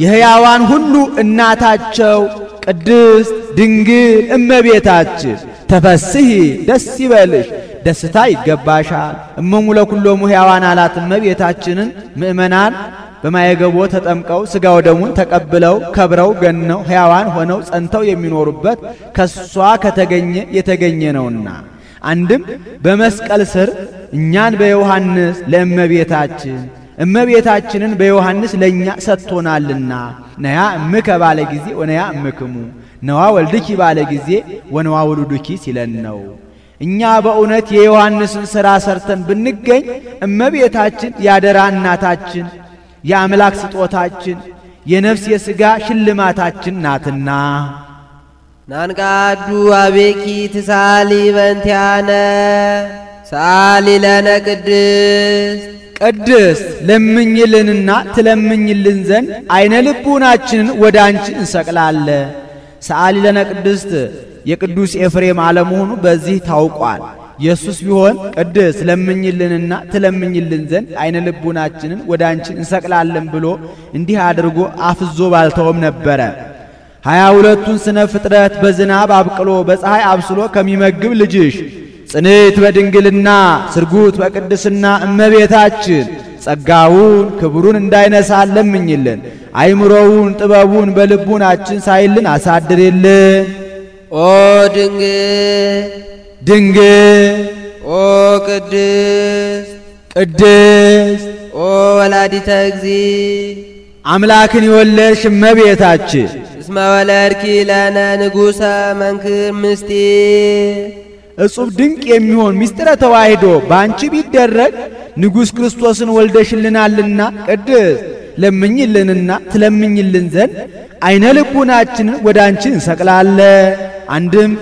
የሕያዋን ሁሉ እናታቸው ቅድስት ድንግል እመቤታችን ተፈሥሒ ደስ ይበልሽ፣ ደስታ ይገባሻል። እሞሙ ለኩሎሙ ሕያዋን አላት እመቤታችንን ምእመናን በማየገቦ ተጠምቀው ሥጋ ወደሙን ተቀብለው ከብረው ገነው ሕያዋን ሆነው ጸንተው የሚኖሩበት ከሷ ከተገኘ የተገኘ ነውና። አንድም በመስቀል ስር እኛን በዮሐንስ ለእመቤታችን እመቤታችንን በዮሐንስ ለእኛ ሰጥቶናልና ነያ እምከ ባለ ጊዜ ወነያ እምክሙ ነዋ ወልድኪ ባለ ጊዜ ወነዋ ወልዱኪ ሲለን ነው። እኛ በእውነት የዮሐንስን ሥራ ሰርተን ብንገኝ እመቤታችን ያደራ እናታችን የአምላክ ስጦታችን የነፍስ የሥጋ ሽልማታችን ናትና። ናንቃዱ አቤኪ ትሳሊ በእንቲአነ ሳሊ ለነ ቅድስት ለምኝልንና ትለምኝልን ዘንድ አይነ ልቡናችንን ወደ አንቺ እንሰቅላለን። ሰአሊ ለነ ቅድስት የቅዱስ ኤፍሬም አለመሆኑ በዚህ ታውቋል። ኢየሱስ ቢሆን ቅድስት ለምኝልንና ትለምኝልን ዘንድ አይነ ልቡናችንን ወደ አንቺ እንሰቅላለን ብሎ እንዲህ አድርጎ አፍዞ ባልተውም ነበረ። 22ቱን ስነ ፍጥረት በዝናብ አብቅሎ በፀሐይ አብስሎ ከሚመግብ ልጅሽ ጽንዕት በድንግልና ስርጉት በቅድስና እመቤታችን ጸጋውን ክብሩን እንዳይነሳን ለምኝልን። አይምሮውን ጥበቡን በልቡናችን ሳይልን አሳድርልን። ኦ ድንግል ድንግል ኦ ቅድስት ቅድስት ኦ ወላዲተ እግዚእ አምላክን የወለድሽ እመቤታችን እስመ ወለድኪ ለነ ንጉሠ መንክር ምስጢር እጹብ ድንቅ የሚሆን ምስጢረ ተዋሕዶ ባንቺ ቢደረግ ንጉሥ ክርስቶስን ወልደሽልናልና ቅድስት ለምኝልንና ትለምኝልን ዘንድ አይነ ልቡናችንን ወደ አንቺ እንሰቅላለን። አንድም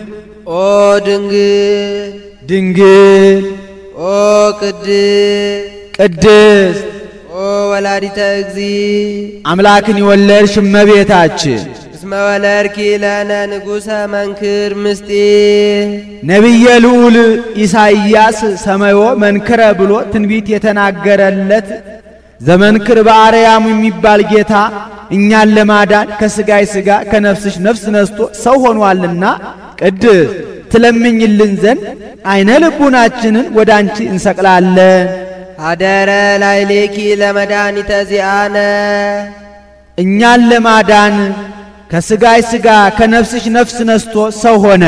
ኦ ድንግል ድንግል ኦ ቅድስት ኦ ወላዲተ እግዚእ አምላክን የወለድሽ እመቤታችን እስመ ወለድኪ ለነ ንጉሠ መንክር ምስጢር ነቢየ ልዑል ኢሳይያስ ሰማዮ መንክረ ብሎ ትንቢት የተናገረለት ዘመንክር በአርያሙ የሚባል ጌታ እኛን ለማዳን ከሥጋይ ሥጋ ከነፍስሽ ነፍስ ነስቶ ሰው ሆኗልና ቅድስት ትለምኝልን ዘንድ አይነ ልቡናችንን ወደ አንቺ እንሰቅላለን። አደረ ላይሌኪ ለመድኃኒተ ዚአነ እኛን ለማዳን ከሥጋይ ሥጋ ከነፍስሽ ነፍስ ነስቶ ሰው ሆነ።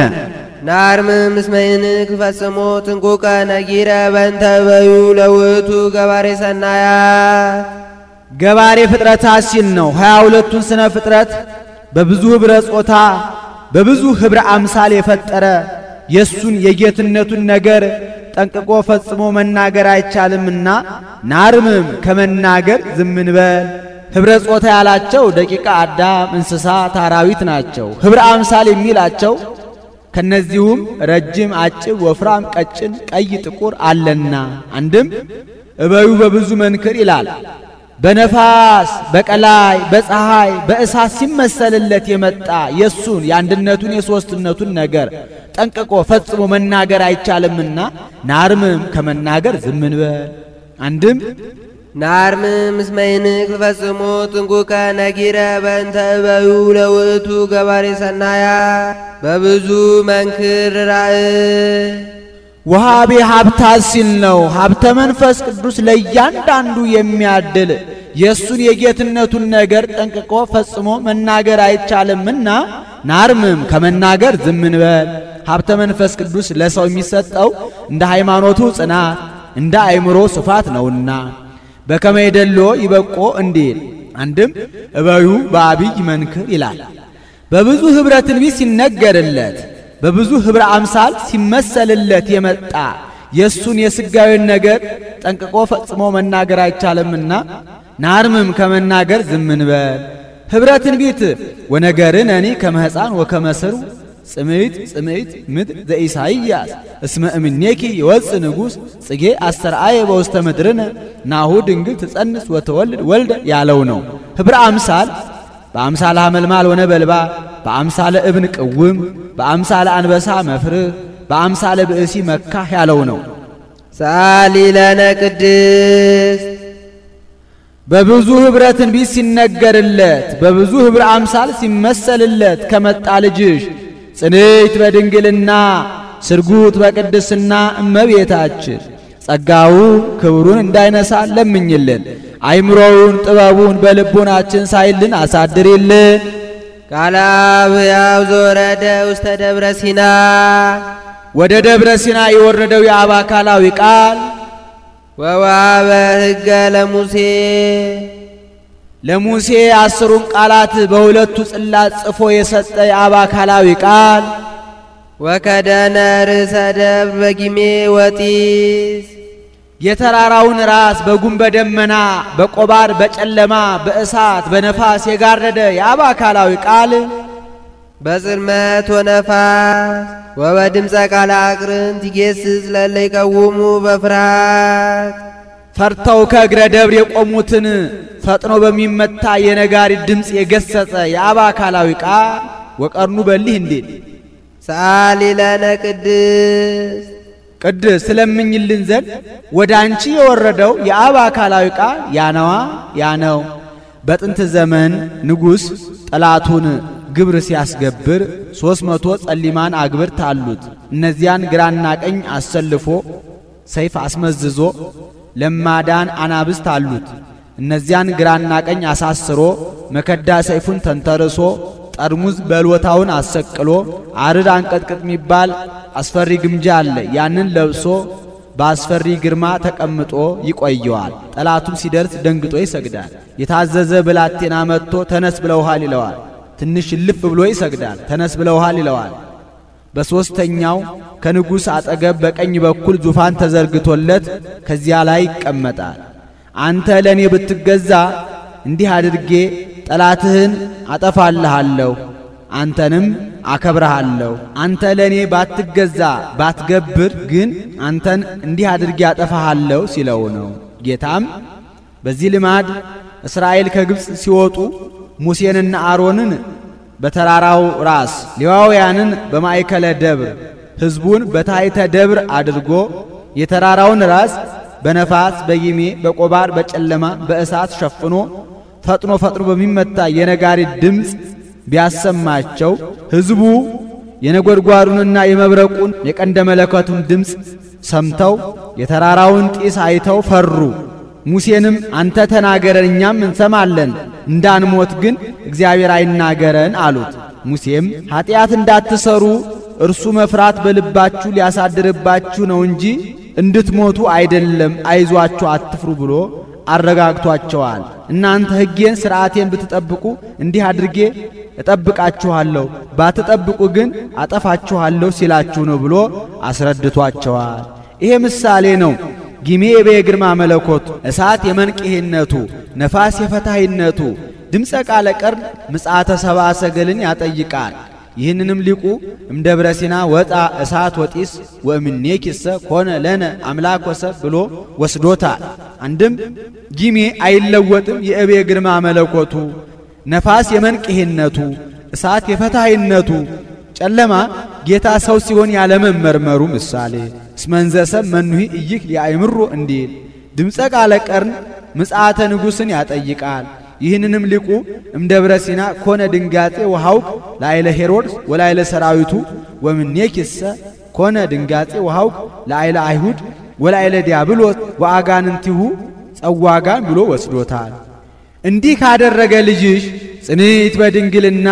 ናርምም እስመ ይንክ ፈጽሞ ጥንቁቀ ነጊረ በእንተ በዩ ለውእቱ ገባሬ ሰናያት ገባሬ ፍጥረታት ሲል ነው። 22ቱን ስነ ፍጥረት በብዙ ኅብረ ጾታ በብዙ ኅብረ አምሳል የፈጠረ የሱን የጌትነቱን ነገር ጠንቅቆ ፈጽሞ መናገር አይቻልምና ናርምም ከመናገር ዝም እንበል። ኅብረ ጾታ ያላቸው ደቂቀ አዳም፣ እንስሳት፣ አራዊት ናቸው። ኅብረ አምሳል የሚላቸው ከነዚሁም ረጅም፣ አጭር፣ ወፍራም፣ ቀጭን፣ ቀይ፣ ጥቁር አለና አንድም እበዩ በብዙ መንክር ይላል። በነፋስ በቀላይ በፀሐይ በእሳት ሲመሰልለት የመጣ የሱን የአንድነቱን የሦስትነቱን ነገር ጠንቅቆ ፈጽሞ መናገር አይቻልምና ናርምም ከመናገር ዝም እንበል። አንድም ናርምም እስመ ይንክ ፈጽሞ ጥንቁቀ ነጊረ በእንተ በዩ ለውእቱ ገባሬ ሰናያት በብዙ መንክር ራእይ ወሃቤ ሀብታት ሲል ነው። ሀብተ መንፈስ ቅዱስ ለእያንዳንዱ የሚያድል የእሱን የጌትነቱን ነገር ጠንቅቆ ፈጽሞ መናገር አይቻልምና ናርምም ከመናገር ዝም እንበል። ሀብተ መንፈስ ቅዱስ ለሰው የሚሰጠው እንደ ሃይማኖቱ ጽናት እንደ አእምሮ ስፋት ነውና በከመ ይደሎ ይበቆ እንዲል። አንድም እበዩ በአብይ መንክር ይላል። በብዙ ኅብረ ትንቢት ሲነገርለት በብዙ ኅብረ አምሳል ሲመሰልለት የመጣ የሱን የሥጋዊን ነገር ጠንቅቆ ፈጽሞ መናገር አይቻልምና ናርምም ከመናገር ዝም እንበል። ኅብረ ትንቢት ወነገርነኒ ከመ ሕፃን ወከመ ሥሩ ጽምዕት ምድር ዘኢሳይያስ እስመ እምኔኪ ይወፅእ ንጉሥ ጽጌ አስተርአየ በውስተ ምድርነ ናሁ ድንግል ትጸንስ ወተወልድ ወልደ ያለው ነው። ኅብረ አምሳል በአምሳለ ሐመልማል ወነበልባል፣ በአምሳለ እብን ቅውም፣ በአምሳለ አንበሳ መፍርህ፣ በአምሳለ ብእሲ መካህ ያለው ነው። ሰአሊ ለነ ቅድስት በብዙ ኅብረ ትንቢት ሲነገርለት በብዙ ኅብረ አምሳል ሲመሰልለት ከመጣ ልጅሽ ጽንዕት በድንግልና ስርጉት በቅድስና እመቤታችን ጸጋው ክብሩን እንዳይነሳ ለምኝልን። አይምሮውን ጥበቡን በልቡናችን ሳይልን አሳድሪልን። ቃለ አብ ሕያው ዘወረደ ውስተ ደብረ ሲና ወደ ደብረ ሲና የወረደው የአብ አካላዊ ቃል ወወሀበ ሕገ ለሙሴ 10ሩን ቃላት በሁለቱ ጽላት ጽፎ የሰጠ የአብ አካላዊ ቃል ወከደነ ርእሰ ደብር በጊሜ ወጢስ የተራራውን ራስ በጉም በደመና በቆባር በጨለማ በእሳት በነፋስ የጋረደ የአብ አካላዊ ቃል በጽልመት ወነፋስ ወበድምፀ ቃለ አቅርንት ይጌስጽ ለእለ ይቀውሙ በፍርሃት ፈርተው ከእግረ ደብር የቆሙትን ፈጥኖ በሚመታ የነጋሪት ድምፅ የገሰጸ የአብ አካላዊ ቃል ወቀርኑ በሊህ እንዴት ሰአሊ ለነ ቅድስት ስለምኝልን ዘንድ ወደ አንቺ የወረደው የአብ አካላዊ ቃል ያነዋ ያነው። በጥንት ዘመን ንጉሥ ጠላቱን ግብር ሲያስገብር 300 ጸሊማን አግብርት አሉት። እነዚያን ግራና ቀኝ አሰልፎ ሰይፍ አስመዝዞ ለማዳን አናብስት አሉት። እነዚያን ግራና ቀኝ አሳስሮ መከዳ ሰይፉን ተንተርሶ ጠርሙዝ በልወታውን አሰቅሎ አርድ አንቀጥቅጥ የሚባል አስፈሪ ግምጃ አለ። ያንን ለብሶ በአስፈሪ ግርማ ተቀምጦ ይቆየዋል። ጠላቱም ሲደርስ ደንግጦ ይሰግዳል። የታዘዘ ብላቴና መጥቶ ተነስ ብለውሃል ይለዋል። ትንሽ እልፍ ብሎ ይሰግዳል። ተነስ ብለውሃል ይለዋል። በሦስተኛው ከንጉሥ አጠገብ በቀኝ በኩል ዙፋን ተዘርግቶለት ከዚያ ላይ ይቀመጣል። አንተ ለእኔ ብትገዛ እንዲህ አድርጌ ጠላትህን አጠፋልሃለሁ፣ አንተንም አከብረሃለሁ። አንተ ለእኔ ባትገዛ ባትገብር ግን አንተን እንዲህ አድርጌ አጠፋሃለሁ ሲለው ነው። ጌታም በዚህ ልማድ እስራኤል ከግብፅ ሲወጡ ሙሴንና አሮንን በተራራው ራስ ሌዋውያንን በማእከለ ደብር ሕዝቡን በታሕተ ደብር አድርጎ የተራራውን ራስ በነፋስ በጊሜ በቆባር በጨለማ በእሳት ሸፍኖ ፈጥኖ በሚመታ የነጋሪት ድምፅ ቢያሰማቸው ሕዝቡ የነጎድጓዱንና የመብረቁን የቀንደ መለከቱን ድምፅ ሰምተው የተራራውን ጢስ አይተው ፈሩ። ሙሴንም አንተ ተናገረን እኛም እንሰማለን፣ እንዳንሞት ግን እግዚአብሔር አይናገረን አሉት። ሙሴም ኀጢአት እንዳትሰሩ እርሱ መፍራት በልባችሁ ሊያሳድርባችሁ ነው እንጂ እንድትሞቱ አይደለም፣ አይዟችሁ አትፍሩ ብሎ አረጋግቷቸዋል። እናንተ ሕጌን ሥርዓቴን ብትጠብቁ እንዲህ አድርጌ እጠብቃችኋለሁ፣ ባትጠብቁ ግን አጠፋችኋለሁ ሲላችሁ ነው ብሎ አስረድቷቸዋል። ይሄ ምሳሌ ነው። ጊሜ የግርማ መለኮት፣ እሳት የመንቅሄነቱ፣ ነፋስ የፈታሂነቱ፣ ድምፀ ቃለ ቀርን ምጽአተ ሰብአ ሰገልን ያጠይቃል። ይህንንም ሊቁ እምደብረ ሲና ወጣ እሳት ወጢስ ወእምኔኪሰ ኮነ ለነ አምላክ ወሰብ ብሎ ወስዶታል። አንድም ጊሜ አይለወጥም የእቤ ግርማ መለኮቱ፣ ነፋስ የመንቅሄነቱ፣ እሳት የፈታሂነቱ፣ ጨለማ ጌታ ሰው ሲሆን ያለመመርመሩ ምሳሌ እስመንዘሰብ መኑሂ እይክ ሊያይምሮ እንዲል ድምፀ ቃለ ቀርን ምጽአተ ንጉሥን ያጠይቃል። ይህንንም ሊቁ እምደብረ ሲና ኮነ ድንጋጤ ወሐውክ ላይለ ሄሮድስ ወላይለ ሰራዊቱ ወምኔኪሰ ኮነ ድንጋጤ ወሐውክ ላይለ አይሁድ ወላይለ ዲያብሎስ ወአጋንንቲሁ ጸዋጋን ብሎ ወስዶታል። እንዲህ ካደረገ ልጅሽ ጽንዕት በድንግልና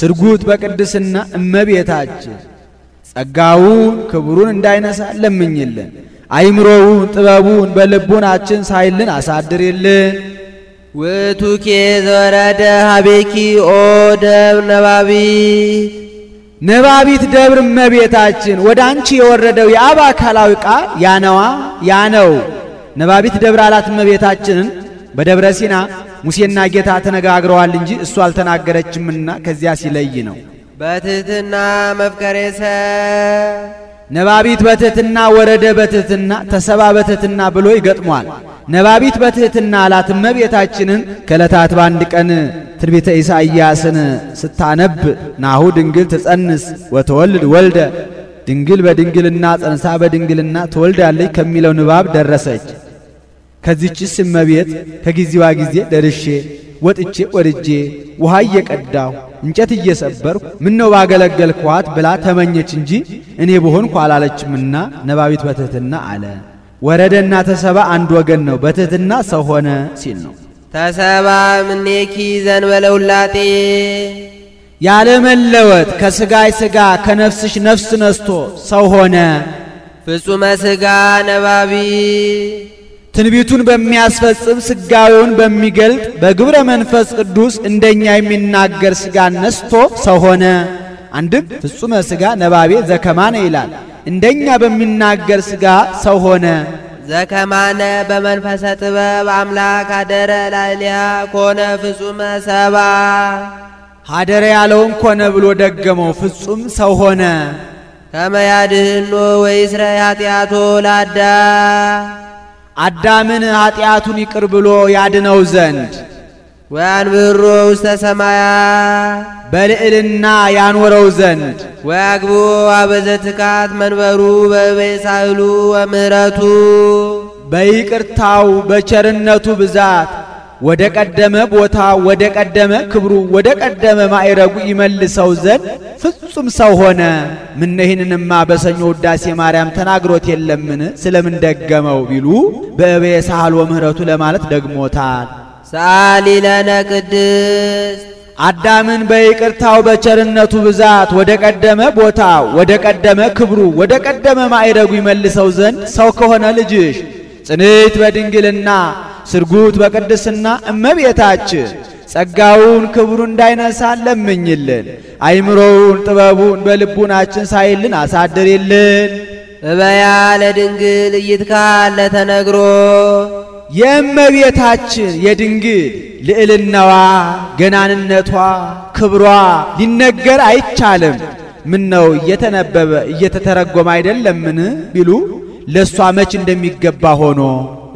ስርጉት በቅድስና እመቤታችን ጸጋውን ክብሩን እንዳይነሳ ለምኝልን። አይምሮውን ጥበቡን በልቡናችን ሳይልን አሳድርልን። ውእቱኬ ዘወረደ ሀቤኪ ኦ ደብር ነባቢት ነባቢት ደብር እመቤታችን ወደ አንቺ የወረደው የአብ አካላዊ ቃል ያነዋ ያነው። ነባቢት ደብር አላት እመቤታችንን። በደብረ ሲና ሙሴና ጌታ ተነጋግረዋል እንጂ እሱ አልተናገረችምና ከዚያ ሲለይ ነው። በትሕትና መፍቀሬሰ ነባቢት በትሕትና ወረደ በትሕትና ተሰባ በትሕትና ብሎ ይገጥሟል። ነባቢት በትሕትና አላት እመቤታችንን። ከዕለታት በአንድ ቀን ትንቢተ ኢሳይያስን ስታነብ ናሁ ድንግል ትጸንስ ወተወልድ ወልደ፣ ድንግል በድንግልና ጸንሳ በድንግልና ትወልዳለች ከሚለው ንባብ ደረሰች። ከዚህችስ እመቤት ከጊዜዋ ጊዜ ደርሼ ወጥቼ ወርጄ ውሃ እየቀዳሁ እንጨት እየሰበርኩ ምነው ባገለገልኳት ብላ ተመኘች እንጂ እኔ በሆንኩ አላለችምና ነባቢት በትሕትና አለ። ወረደና ተሰባ አንድ ወገን ነው። በትሕትና ሰው ሆነ ሲል ነው። ተሰባ ምኔኪ ዘንበለ ውላጤ ያለ መለወጥ ከሥጋይ ሥጋ ከነፍስሽ ነፍስ ነስቶ ሰው ሆነ። ፍጹመ ሥጋ ነባቢ ትንቢቱን በሚያስፈጽም ሥጋዌውን በሚገልጥ በግብረ መንፈስ ቅዱስ እንደኛ የሚናገር ሥጋን ነስቶ ሰው ሆነ። አንድም ፍጹመ ሥጋ ነባቤ ዘከማነ ይላል። እንደኛ በሚናገር ሥጋ ሰው ሆነ። ዘከማነ በመንፈሰ ጥበብ አምላክ አደረ ላዕሌሃ ኮነ ፍጹመ ሰባ ሀደረ ያለውን ኮነ ብሎ ደገመው። ፍጹም ሰው ሆነ። ከመ ያድኅኖ ወይስረይ ኃጢአቶ ለአዳም አዳምን ኃጢአቱን ይቅር ብሎ ያድነው ዘንድ ወያንብሮ ውስተ ሰማያት በልዕልና ያኖረው ዘንድ ወያግቦ አበዘትካት መንበሩ በበሳህሉ ወምህረቱ በይቅርታው በቸርነቱ ብዛት ወደ ቀደመ ቦታ ወደ ቀደመ ክብሩ ወደ ቀደመ ማዕረጉ ይመልሰው ዘንድ ፍጹም ሰው ሆነ። ምን ይህንንማ በሰኞ ውዳሴ ማርያም ተናግሮት የለምን? ስለምን ደገመው ቢሉ በበሳህሉ ወምህረቱ ለማለት ደግሞታል። ሰአሊ ለነ ቅድስት አዳምን በይቅርታው በቸርነቱ ብዛት ወደ ቀደመ ቦታው ወደ ቀደመ ክብሩ ወደ ቀደመ ማዕረጉ ይመልሰው ዘንድ ሰው ከሆነ ልጅሽ ጽንዕት በድንግልና ስርጉት በቅድስና እመቤታችን ጸጋውን ክብሩን እንዳይነሳ ለምኝልን። አይምሮውን ጥበቡን በልቡናችን ሳይልን አሳድርልን። እበያ ለድንግል እይትካል ለተነግሮ የእመቤታችን የድንግል ልዕልናዋ ገናንነቷ ክብሯ ሊነገር አይቻልም። ምን ነው እየተነበበ እየተተረጎመ አይደለምን ቢሉ ለሷ መች እንደሚገባ ሆኖ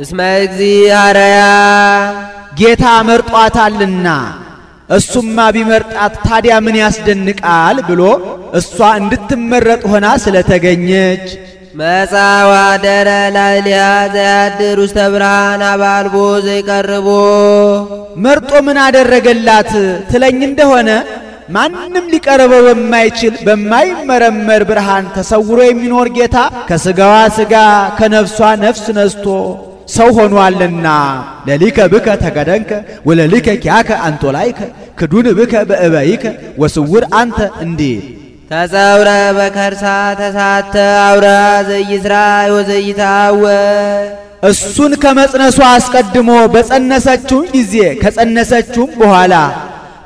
እስመ እግዚአብሔር ጌታ መርጧታልና እሱማ ቢመርጣት ታዲያ ምን ያስደንቃል ብሎ እሷ እንድትመረጥ ሆና ስለተገኘች መጻዋ ደረ ላይሊያ ዘያድር ውስተ ብርሃን አባልቦ ዘይቀርቦ መርጦ ምን አደረገላት ትለኝ እንደሆነ ማንም ሊቀርበው በማይችል በማይመረመር ብርሃን ተሰውሮ የሚኖር ጌታ ከስጋዋ ስጋ ከነፍሷ ነፍስ ነስቶ ሰው ሆኗልና ለሊከ ብከ ተገደንከ ወለሊከ ኪያከ አንጦላይከ ክዱን ብከ በእበይከ ወስውር አንተ እንዴ ተጸውረ በከርሳ ተሳተ አውራ ዘይስራ ወዘይታወ እሱን ከመጽነሷ አስቀድሞ በጸነሰችው ጊዜ ከጸነሰችው በኋላ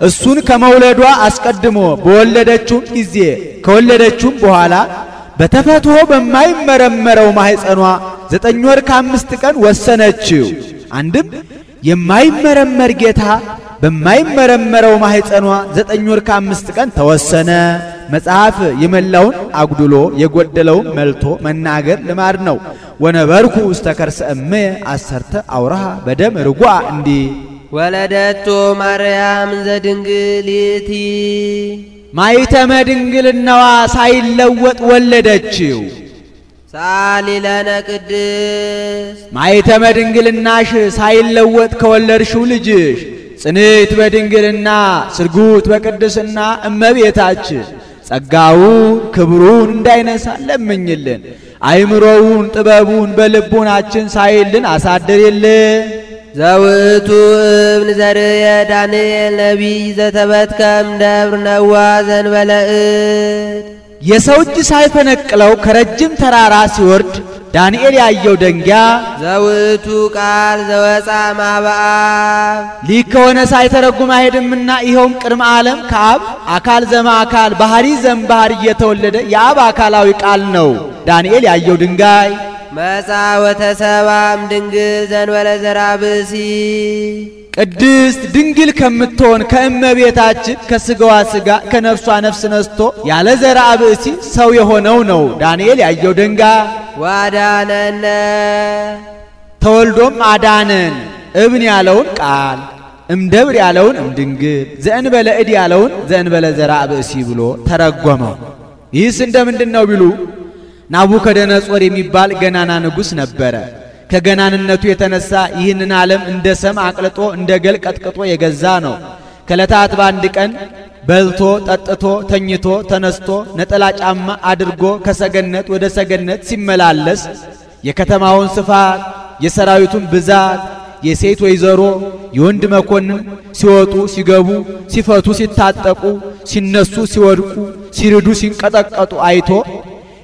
እሱን ከመውለዷ አስቀድሞ በወለደችው ጊዜ ከወለደችው በኋላ በተፈትሖ በማይመረመረው ማህፀኗ 9 ወር ከ5 ቀን ወሰነችው። አንድም የማይመረመር ጌታ በማይመረመረው ማህፀኗ 9 ወር ከ5 ቀን ተወሰነ። መጽሐፍ የመላውን አጉድሎ የጎደለውን መልቶ መናገር ልማድ ነው። ወነበርኩ ውስተ ከርሰ እምየ 10 አውራሃ በደም ርጓ እንዲ ወለደቶ ማርያም ዘድንግሊቲ ማይተመ ድንግልናዋ ሳይለወጥ ወለደችው። ሳሊለነ ቅድስ ማይተመ ድንግልናሽ ሳይለወጥ ከወለድሽው ልጅሽ ጽንዕት በድንግልና ስርጉት በቅድስና እመቤታችን ጸጋውን ክብሩን እንዳይነሳ ለምኝልን። አይምሮውን ጥበቡን በልቡናችን ሳይልን አሳድርልን። ዘውቱ እብን ዘርየ ዳንኤል ነቢይ ዘተበትከም ደብር ነዋ ዘንበለእድ የሰው እጅ ሳይፈነቅለው ከረጅም ተራራ ሲወርድ ዳንኤል ያየው ደንጊያ ዘውቱ ቃል ዘወፃ ማበአብ ሊክ ከሆነ ሳይተረጉም አይሄድምና ይኸውም ቅድመ ዓለም ከአብ አካል ዘማ አካል ባህሪ ዘም ባህሪ እየተወለደ የአብ አካላዊ ቃል ነው። ዳንኤል ያየው ድንጋይ መጻ ወተሰባም ድንግል ዘንበለ ዘራ ብእሲ ቅድስት ድንግል ከምትሆን ከእመቤታችን ከስጋዋ ስጋ ከነፍሷ ነፍስ ነስቶ ያለ ዘራ ብእሲ ሰው የሆነው ነው። ዳንኤል ያየው ድንጋይ ዋዳነነ ተወልዶም አዳነን። እብን ያለውን ቃል እምደብር ያለውን እምድንግል ዘእንበለ እድ ያለውን ዘእንበለ ዘራ ብእሲ ብሎ ተረጎመው። ይህስ እንደምንድን ነው ቢሉ ናቡከደነጾር የሚባል ገናና ንጉሥ ነበረ። ከገናንነቱ የተነሳ ይህንን ዓለም እንደ ሰም አቅልጦ እንደ ገል ቀጥቅጦ የገዛ ነው። ከዕለታት በአንድ ቀን በልቶ ጠጥቶ ተኝቶ ተነስቶ ነጠላ ጫማ አድርጎ ከሰገነት ወደ ሰገነት ሲመላለስ የከተማውን ስፋት የሰራዊቱን ብዛት የሴት ወይዘሮ የወንድ መኮንን ሲወጡ ሲገቡ ሲፈቱ ሲታጠቁ ሲነሱ ሲወድቁ ሲርዱ ሲንቀጠቀጡ አይቶ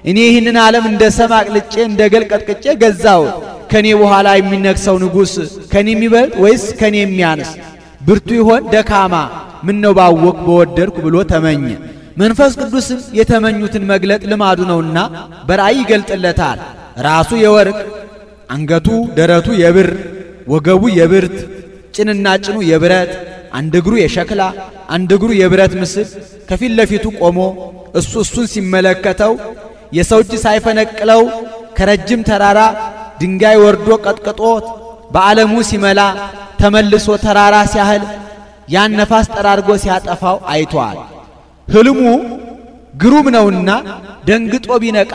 እኔ ይህንን ዓለም እንደ ሰም አቅልጬ እንደ ገል ቀጥቅጬ ገዛሁት። ከኔ በኋላ የሚነግሰው ንጉሥ ከኔ የሚበልጥ ወይስ ከኔ የሚያንስ? ብርቱ ይሆን ደካማ? ምን ነው ባወቅ በወደድኩ ብሎ ተመኘ። መንፈስ ቅዱስም የተመኙትን መግለጥ ልማዱ ነውና በራእይ ይገልጥለታል። ራሱ የወርቅ አንገቱ ደረቱ የብር ወገቡ የብርት ጭንና ጭኑ የብረት አንድ እግሩ የሸክላ አንድ እግሩ የብረት ምስል ከፊት ለፊቱ ቆሞ እሱን ሲመለከተው የሰው እጅ ሳይፈነቅለው ከረጅም ተራራ ድንጋይ ወርዶ ቀጥቅጦት በዓለሙ ሲመላ ተመልሶ ተራራ ሲያህል ያን ነፋስ ጠራርጎ ሲያጠፋው አይቷል። ህልሙ ግሩም ነውና ደንግጦ ቢነቃ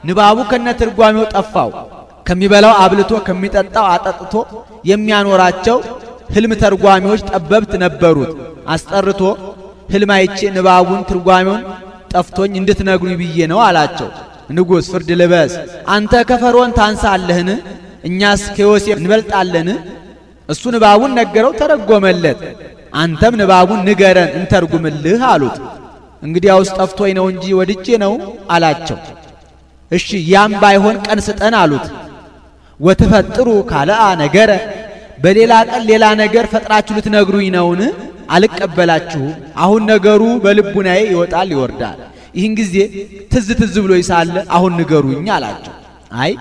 ንባቡ ከነትርጓሜው ጠፋው። ከሚበላው አብልቶ ከሚጠጣው አጠጥቶ የሚያኖራቸው ህልም ተርጓሚዎች ጠበብት ነበሩት። አስጠርቶ ህልም አይቼ ንባቡን ትርጓሜውን ጠፍቶኝ እንድትነግሩኝ ብዬ ነው አላቸው። ንጉሥ ፍርድ ልበስ፣ አንተ ከፈርዖን ታንሳለህን? እኛስ ከዮሴፍ እንበልጣለን? እሱ ንባቡን ነገረው፣ ተረጎመለት። አንተም ንባቡን ንገረን እንተርጉምልህ አሉት። እንግዲያውስ ጠፍቶኝ ነው እንጂ ወድጄ ነው አላቸው። እሺ ያም ባይሆን ቀን ስጠን አሉት። ወትፈጥሩ ካልአ ነገረ በሌላ ቀን ሌላ ነገር ፈጥራችሁ ልትነግሩኝ ነውን? አልቀበላችሁም። አሁን ነገሩ በልቡናዬ ይወጣል ይወርዳል። ይህን ጊዜ ትዝ ብሎ ይሳለ አሁን ንገሩኝ አላቸው። አይ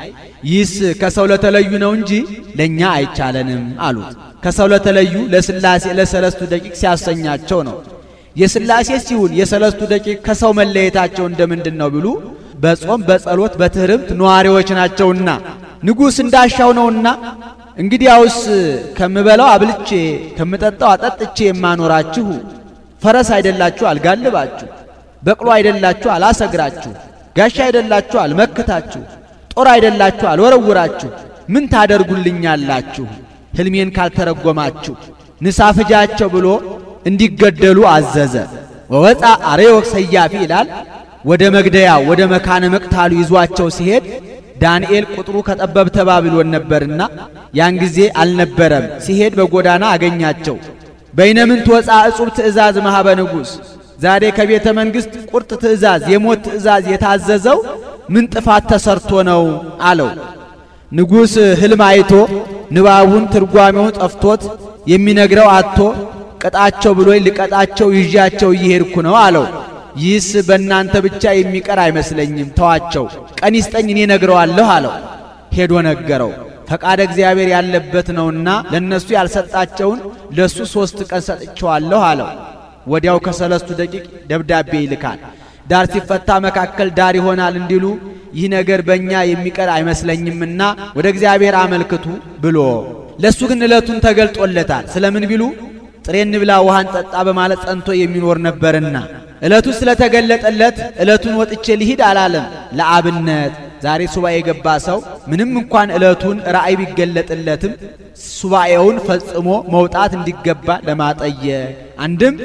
ይህስ ከሰው ለተለዩ ነው እንጂ ለኛ አይቻለንም አሉት። ከሰው ለተለዩ ለስላሴ ለሰለስቱ ደቂቅ ሲያሰኛቸው ነው። የስላሴ ሲሆን የሰለስቱ ደቂቅ ከሰው መለየታቸው እንደምንድን ነው ቢሉ በጾም በጸሎት በትህርምት ነዋሪዎች ናቸውና ንጉሥ እንዳሻው ነውና እንግዲያውስ ከምበላው አብልቼ ከምጠጣው አጠጥቼ የማኖራችሁ ፈረስ አይደላችሁ አልጋልባችሁ፣ በቅሎ አይደላችሁ አላሰግራችሁ፣ ጋሻ አይደላችሁ አልመክታችሁ፣ ጦር አይደላችሁ አልወረውራችሁ፣ ምን ታደርጉልኛላችሁ ሕልሜን ካልተረጎማችሁ? ንሳ ፍጃቸው ብሎ እንዲገደሉ አዘዘ። ወወፃ አርዮክ ሰያፊ ይላል። ወደ መግደያ ወደ መካነ መቅታሉ ይዟቸው ሲሄድ ዳንኤል ቁጥሩ ከጠበብተ ባቢሎን ነበርና ያን ጊዜ አልነበረም። ሲሄድ በጎዳና አገኛቸው። በይነምንት ወፃ እጹብ ትእዛዝ ማህበ ንጉሥ፣ ዛሬ ከቤተ መንግሥት ቁርጥ ትእዛዝ የሞት ትእዛዝ የታዘዘው ምን ጥፋት ተሰርቶ ነው አለው። ንጉሥ ሕልም አይቶ ንባቡን ትርጓሜውን ጠፍቶት የሚነግረው አጥቶ ቀጣቸው ብሎ ልቀጣቸው ይዣቸው እየሄድኩ ነው አለው። ይህስ በእናንተ ብቻ የሚቀር አይመስለኝም፣ ተዋቸው፣ ቀን ይስጠኝ እኔ ነግረዋለሁ አለው። ሄዶ ነገረው። ፈቃደ እግዚአብሔር ያለበት ነውና ለነሱ ያልሰጣቸውን ለሱ 3 ቀን ሰጥቼዋለሁ አለው። ወዲያው ከሰለስቱ ደቂቅ ደብዳቤ ይልካል። ዳር ሲፈታ መካከል ዳር ይሆናል እንዲሉ ይህ ነገር በእኛ የሚቀር አይመስለኝምና ወደ እግዚአብሔር አመልክቱ ብሎ ለሱ ግን ዕለቱን ተገልጦለታል። ስለምን ቢሉ ጥሬ እንብላ ውሃን ጠጣ በማለት ጸንቶ የሚኖር ነበርና ዕለቱ ስለተገለጠለት ዕለቱን ወጥቼ ልሂድ አላለም። ለአብነት ዛሬ ሱባኤ የገባ ሰው ምንም እንኳን ዕለቱን ራእይ ቢገለጥለትም ሱባኤውን ፈጽሞ መውጣት እንዲገባ ለማጠየቅ አንድም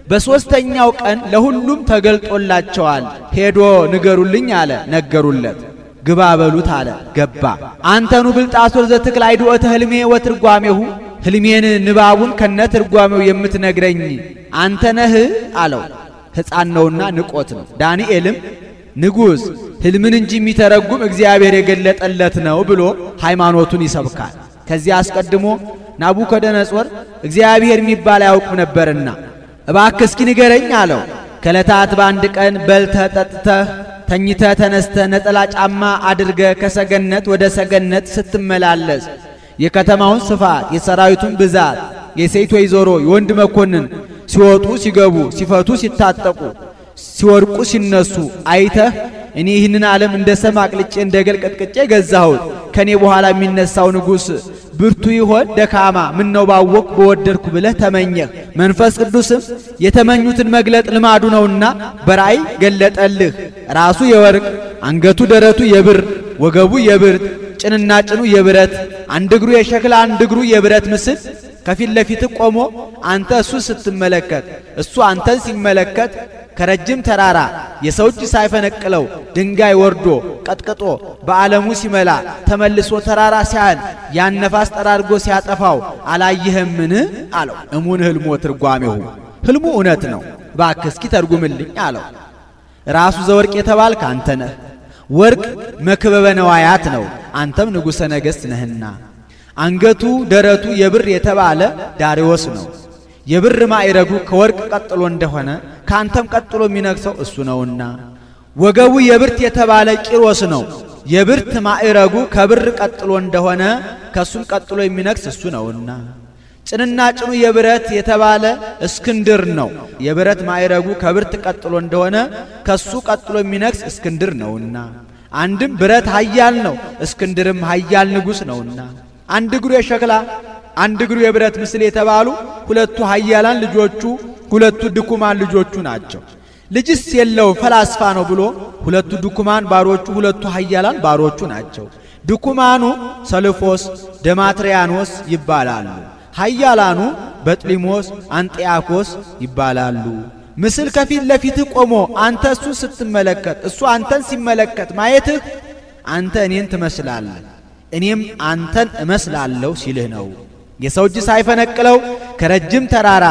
በሶስተኛው ቀን ለሁሉም ተገልጦላቸዋል። ሄዶ ንገሩልኝ አለ፣ ነገሩለት። ግባ በሉት አለ፣ ገባ። አንተኑ ብልጣሶር ዘትክል አይድኦተ ሕልሜ ወትርጓሜሁ፣ ሕልሜን ንባቡን ከነትርጓሜው የምትነግረኝ አንተ ነህ አለው። ሕፃን ነውና ንቆት ነው። ዳንኤልም ንጉሥ ሕልምን እንጂ የሚተረጉም እግዚአብሔር የገለጠለት ነው ብሎ ሃይማኖቱን ይሰብካል። ከዚያ አስቀድሞ ናቡከደነጾር እግዚአብሔር የሚባል አያውቅም ነበርና እባክህ እስኪ ንገረኝ አለው። ከዕለታት በአንድ ቀን በልተህ ጠጥተህ ተኝተህ ተነስተህ ነጠላ ጫማ አድርገህ ከሰገነት ወደ ሰገነት ስትመላለስ የከተማውን ስፋት፣ የሰራዊቱን ብዛት፣ የሴት ወይዘሮ የወንድ መኮንን ሲወጡ ሲገቡ፣ ሲፈቱ ሲታጠቁ፣ ሲወርቁ ሲነሱ አይተህ እኔ ይህንን ዓለም እንደ ሰም አቅልጬ እንደ ገል ቀጥቅጬ ገዛሁት፣ ከኔ በኋላ የሚነሳው ንጉሥ ብርቱ ይሆን ደካማ ምን ነው ባወቅ በወደድኩ ብለህ ተመኘህ። መንፈስ ቅዱስም የተመኙትን መግለጥ ልማዱ ነውና በራእይ ገለጠልህ። ራሱ የወርቅ አንገቱ ደረቱ የብር ወገቡ የብርት ጭንና ጭኑ የብረት አንድ እግሩ የሸክላ አንድ እግሩ የብረት ምስል ከፊት ለፊት ቆሞ አንተ እሱ ስትመለከት እሱ አንተን ሲመለከት ከረጅም ተራራ የሰው እጅ ሳይፈነቅለው ድንጋይ ወርዶ ቀጥቅጦ በዓለሙ ሲመላ ተመልሶ ተራራ ሲያህል ያን ነፋስ ጠራርጎ ሲያጠፋው አላየህምን አለው። እሙን ሕልሞ ትርጓሜሁ፣ ሕልሙ እውነት ነው፣ እባክህ እስኪ ተርጉምልኝ አለው። ራሱ ዘወርቅ የተባልክ አንተ ነህ። ወርቅ መክበበ ነዋያት ነው፣ አንተም ንጉሠ ነገሥት ነህና። አንገቱ ደረቱ የብር የተባለ ዳሪዎስ ነው። የብር ማዕረጉ ከወርቅ ቀጥሎ እንደሆነ ካንተም ቀጥሎ የሚነግሰው እሱ ነውና። ወገቡ የብርት የተባለ ቂሮስ ነው። የብርት ማዕረጉ ከብር ቀጥሎ እንደሆነ ከሱም ቀጥሎ የሚነግስ እሱ ነውና። ጭንና ጭኑ የብረት የተባለ እስክንድር ነው። የብረት ማዕረጉ ከብርት ቀጥሎ እንደሆነ ከሱ ቀጥሎ የሚነግስ እስክንድር ነውና። አንድም ብረት ኃያል ነው፣ እስክንድርም ኃያል ንጉሥ ነውና። አንድ እግሩ የሸክላ አንድ እግሩ የብረት ምስል የተባሉ ሁለቱ ኃያላን ልጆቹ ሁለቱ ድኩማን ልጆቹ ናቸው። ልጅስ የለው ፈላስፋ ነው ብሎ ሁለቱ ድኩማን ባሮቹ ሁለቱ ኃያላን ባሮቹ ናቸው። ድኩማኑ ሰልፎስ ደማትሪያኖስ ይባላሉ። ኃያላኑ በጥሊሞስ አንጢያኮስ ይባላሉ። ምስል ከፊት ለፊት ቆሞ አንተ እሱ ስትመለከት እሱ አንተን ሲመለከት ማየትህ አንተ እኔን ትመስላለህ እኔም አንተን እመስላለሁ ሲልህ ነው። የሰው እጅ ሳይፈነቅለው ከረጅም ተራራ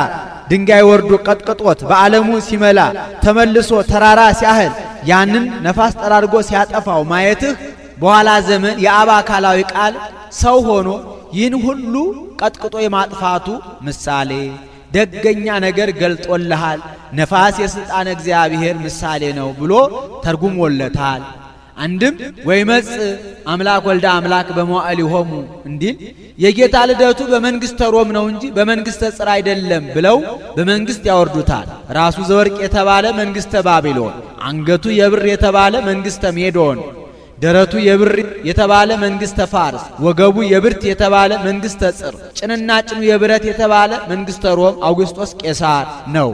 ድንጋይ ወርዶ ቀጥቅጦት በዓለሙ ሲመላ ተመልሶ ተራራ ሲያህል ያንን ነፋስ ጠራርጎ ሲያጠፋው ማየትህ በኋላ ዘመን የአብ አካላዊ ቃል ሰው ሆኖ ይህን ሁሉ ቀጥቅጦ የማጥፋቱ ምሳሌ ደገኛ ነገር ገልጦልሃል። ነፋስ የሥልጣን እግዚአብሔር ምሳሌ ነው ብሎ ተርጉሞለታል። አንድም ወይመጽ አምላክ ወልደ አምላክ በመዋዕሊሆሙ እንዲል የጌታ ልደቱ በመንግስተ ሮም ነው እንጂ በመንግስተ ጽር አይደለም ብለው በመንግስት ያወርዱታል። ራሱ ዘወርቅ የተባለ መንግስተ ባቢሎን፣ አንገቱ የብር የተባለ መንግስተ ሜዶን፣ ደረቱ የብር የተባለ መንግስተ ፋርስ፣ ወገቡ የብርት የተባለ መንግስተ ጽር፣ ጭንና ጭኑ የብረት የተባለ መንግስተ ሮም አውግስጦስ ቄሳር ነው።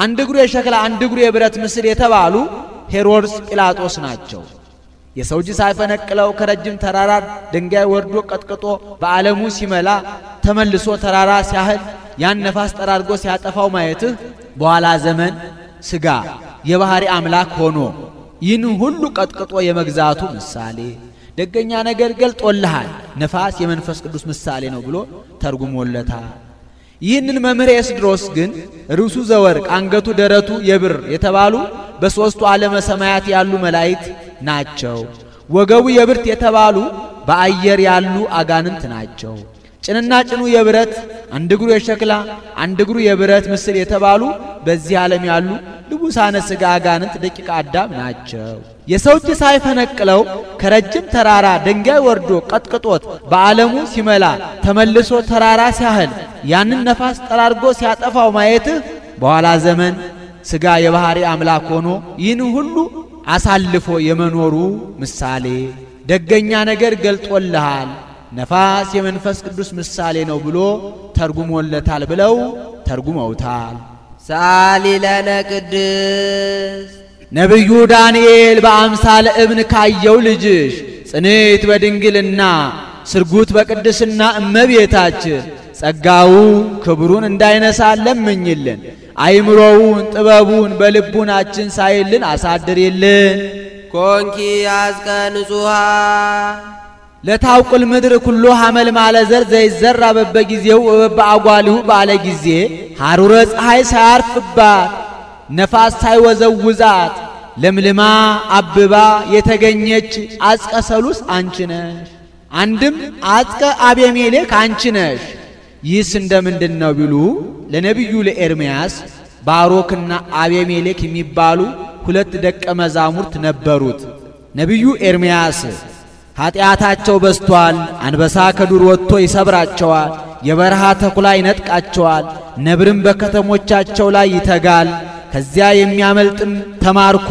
አንድ እግሩ የሸክላ አንድ እግሩ የብረት ምስል የተባሉ ሄሮድስ ጲላጦስ ናቸው። የሰው እጅ ሳይፈነቅለው ከረጅም ተራራ ድንጋይ ወርዶ ቀጥቅጦ በዓለሙ ሲመላ ተመልሶ ተራራ ሲያህል ያን ነፋስ ጠራርጎ ሲያጠፋው ማየትህ በኋላ ዘመን ሥጋ የባህሪ አምላክ ሆኖ ይህን ሁሉ ቀጥቅጦ የመግዛቱ ምሳሌ ደገኛ ነገር ገልጦልሃል። ነፋስ የመንፈስ ቅዱስ ምሳሌ ነው ብሎ ተርጉሞለታል። ይህንን መምህር ኤስድሮስ ግን ርዕሱ ዘወርቅ አንገቱ ደረቱ የብር የተባሉ በሦስቱ ዓለመ ሰማያት ያሉ መላእክት ናቸው። ወገቡ የብርት የተባሉ በአየር ያሉ አጋንንት ናቸው። ጭንና ጭኑ የብረት አንድ እግሩ የሸክላ አንድ እግሩ የብረት ምስል የተባሉ በዚህ ዓለም ያሉ ልቡሳነ ሥጋ አጋንንት ደቂቀ አዳም ናቸው። የሰው እጅ ሳይፈነቅለው ከረጅም ተራራ ድንጋይ ወርዶ ቀጥቅጦት በዓለሙ ሲመላ ተመልሶ ተራራ ሲያህል ያንን ነፋስ ጠራርጎ ሲያጠፋው ማየትህ በኋላ ዘመን ሥጋ የባህሪ አምላክ ሆኖ ይህን ሁሉ አሳልፎ የመኖሩ ምሳሌ ደገኛ ነገር ገልጦልሃል። ነፋስ የመንፈስ ቅዱስ ምሳሌ ነው ብሎ ተርጉሞለታል ብለው ተርጉመውታል። ሰአሊ ለነ ቅድስት ነቢዩ ዳንኤል በአምሳለ እብን ካየው ልጅሽ ጽኔት በድንግልና ስርጉት በቅድስና እመቤታችን ጸጋው ክብሩን እንዳይነሳን ለምኝልን። አይምሮውን ጥበቡን በልቡናችን ሳይልን አሳድርልን። ኮንኪ አዝቀ ንጹሃ ለታውቁል ምድር ኩሎ ሐመል ማለ ዘር ዘይዘራ በበጊዜው በአጓሊሁ ባለ ጊዜ ሐሩረ ፀሐይ ሳያርፍባት ነፋስ ሳይወዘውዛት ለምልማ አብባ የተገኘች አዝቀ ሰሉስ አንቺ ነሽ። አንድም አዝቀ አቤሜሌክ አንቺ ነሽ። ይህስ እንደምንድን ነው ቢሉ ለነቢዩ ለኤርምያስ ባሮክና አቤሜሌክ የሚባሉ ሁለት ደቀ መዛሙርት ነበሩት። ነቢዩ ኤርምያስ ኃጢአታቸው በስቷል፣ አንበሳ ከዱር ወጥቶ ይሰብራቸዋል፣ የበረሃ ተኩላ ይነጥቃቸዋል፣ ነብርም በከተሞቻቸው ላይ ይተጋል፣ ከዚያ የሚያመልጥም ተማርኮ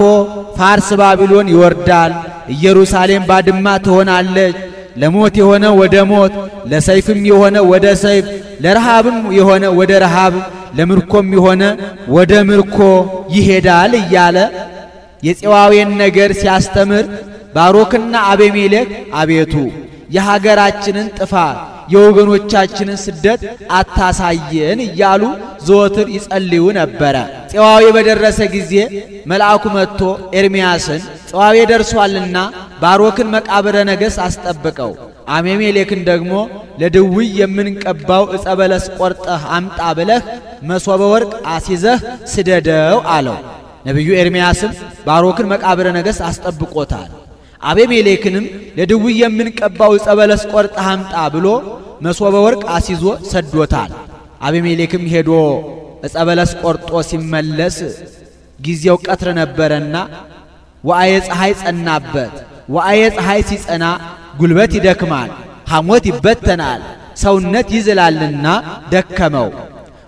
ፋርስ ባቢሎን ይወርዳል፣ ኢየሩሳሌም ባድማ ትሆናለች፣ ለሞት የሆነ ወደ ሞት፣ ለሰይፍም የሆነ ወደ ሰይፍ፣ ለረሃብም የሆነ ወደ ረሃብ፣ ለምርኮም የሆነ ወደ ምርኮ ይሄዳል እያለ የፄዋዌን ነገር ሲያስተምር ባሮክና አቤሜሌክ አቤቱ የሀገራችንን ጥፋት የወገኖቻችንን ስደት አታሳየን እያሉ ዘወትር ይጸልዩ ነበረ። ፄዋዌ በደረሰ ጊዜ መልአኩ መጥቶ ኤርምያስን ፄዋዌ ደርሷልና ባሮክን መቃብረ ነገሥት አስጠብቀው፣ አቤሜሌክን ደግሞ ለድውይ የምንቀባው ዕፀ በለስ ቆርጠህ አምጣ ብለህ መሶበ ወርቅ አሲዘህ ስደደው አለው። ነቢዩ ኤርምያስም ባሮክን መቃብረ ነገሥት አስጠብቆታል። አቤሜሌክንም ለድውይ የምንቀባው ዕፀ በለስ ቆርጠህ አምጣ ብሎ መሶበ ወርቅ አሲዞ ሰዶታል። አቤሜሌክም ሄዶ ዕፀ በለስ ቆርጦ ሲመለስ ጊዜው ቀትር ነበረና ወአየ ፀሐይ ጸናበት። ወአየ ፀሐይ ሲጸና ጉልበት ይደክማል፣ ሐሞት ይበተናል፣ ሰውነት ይዝላልና ደከመው።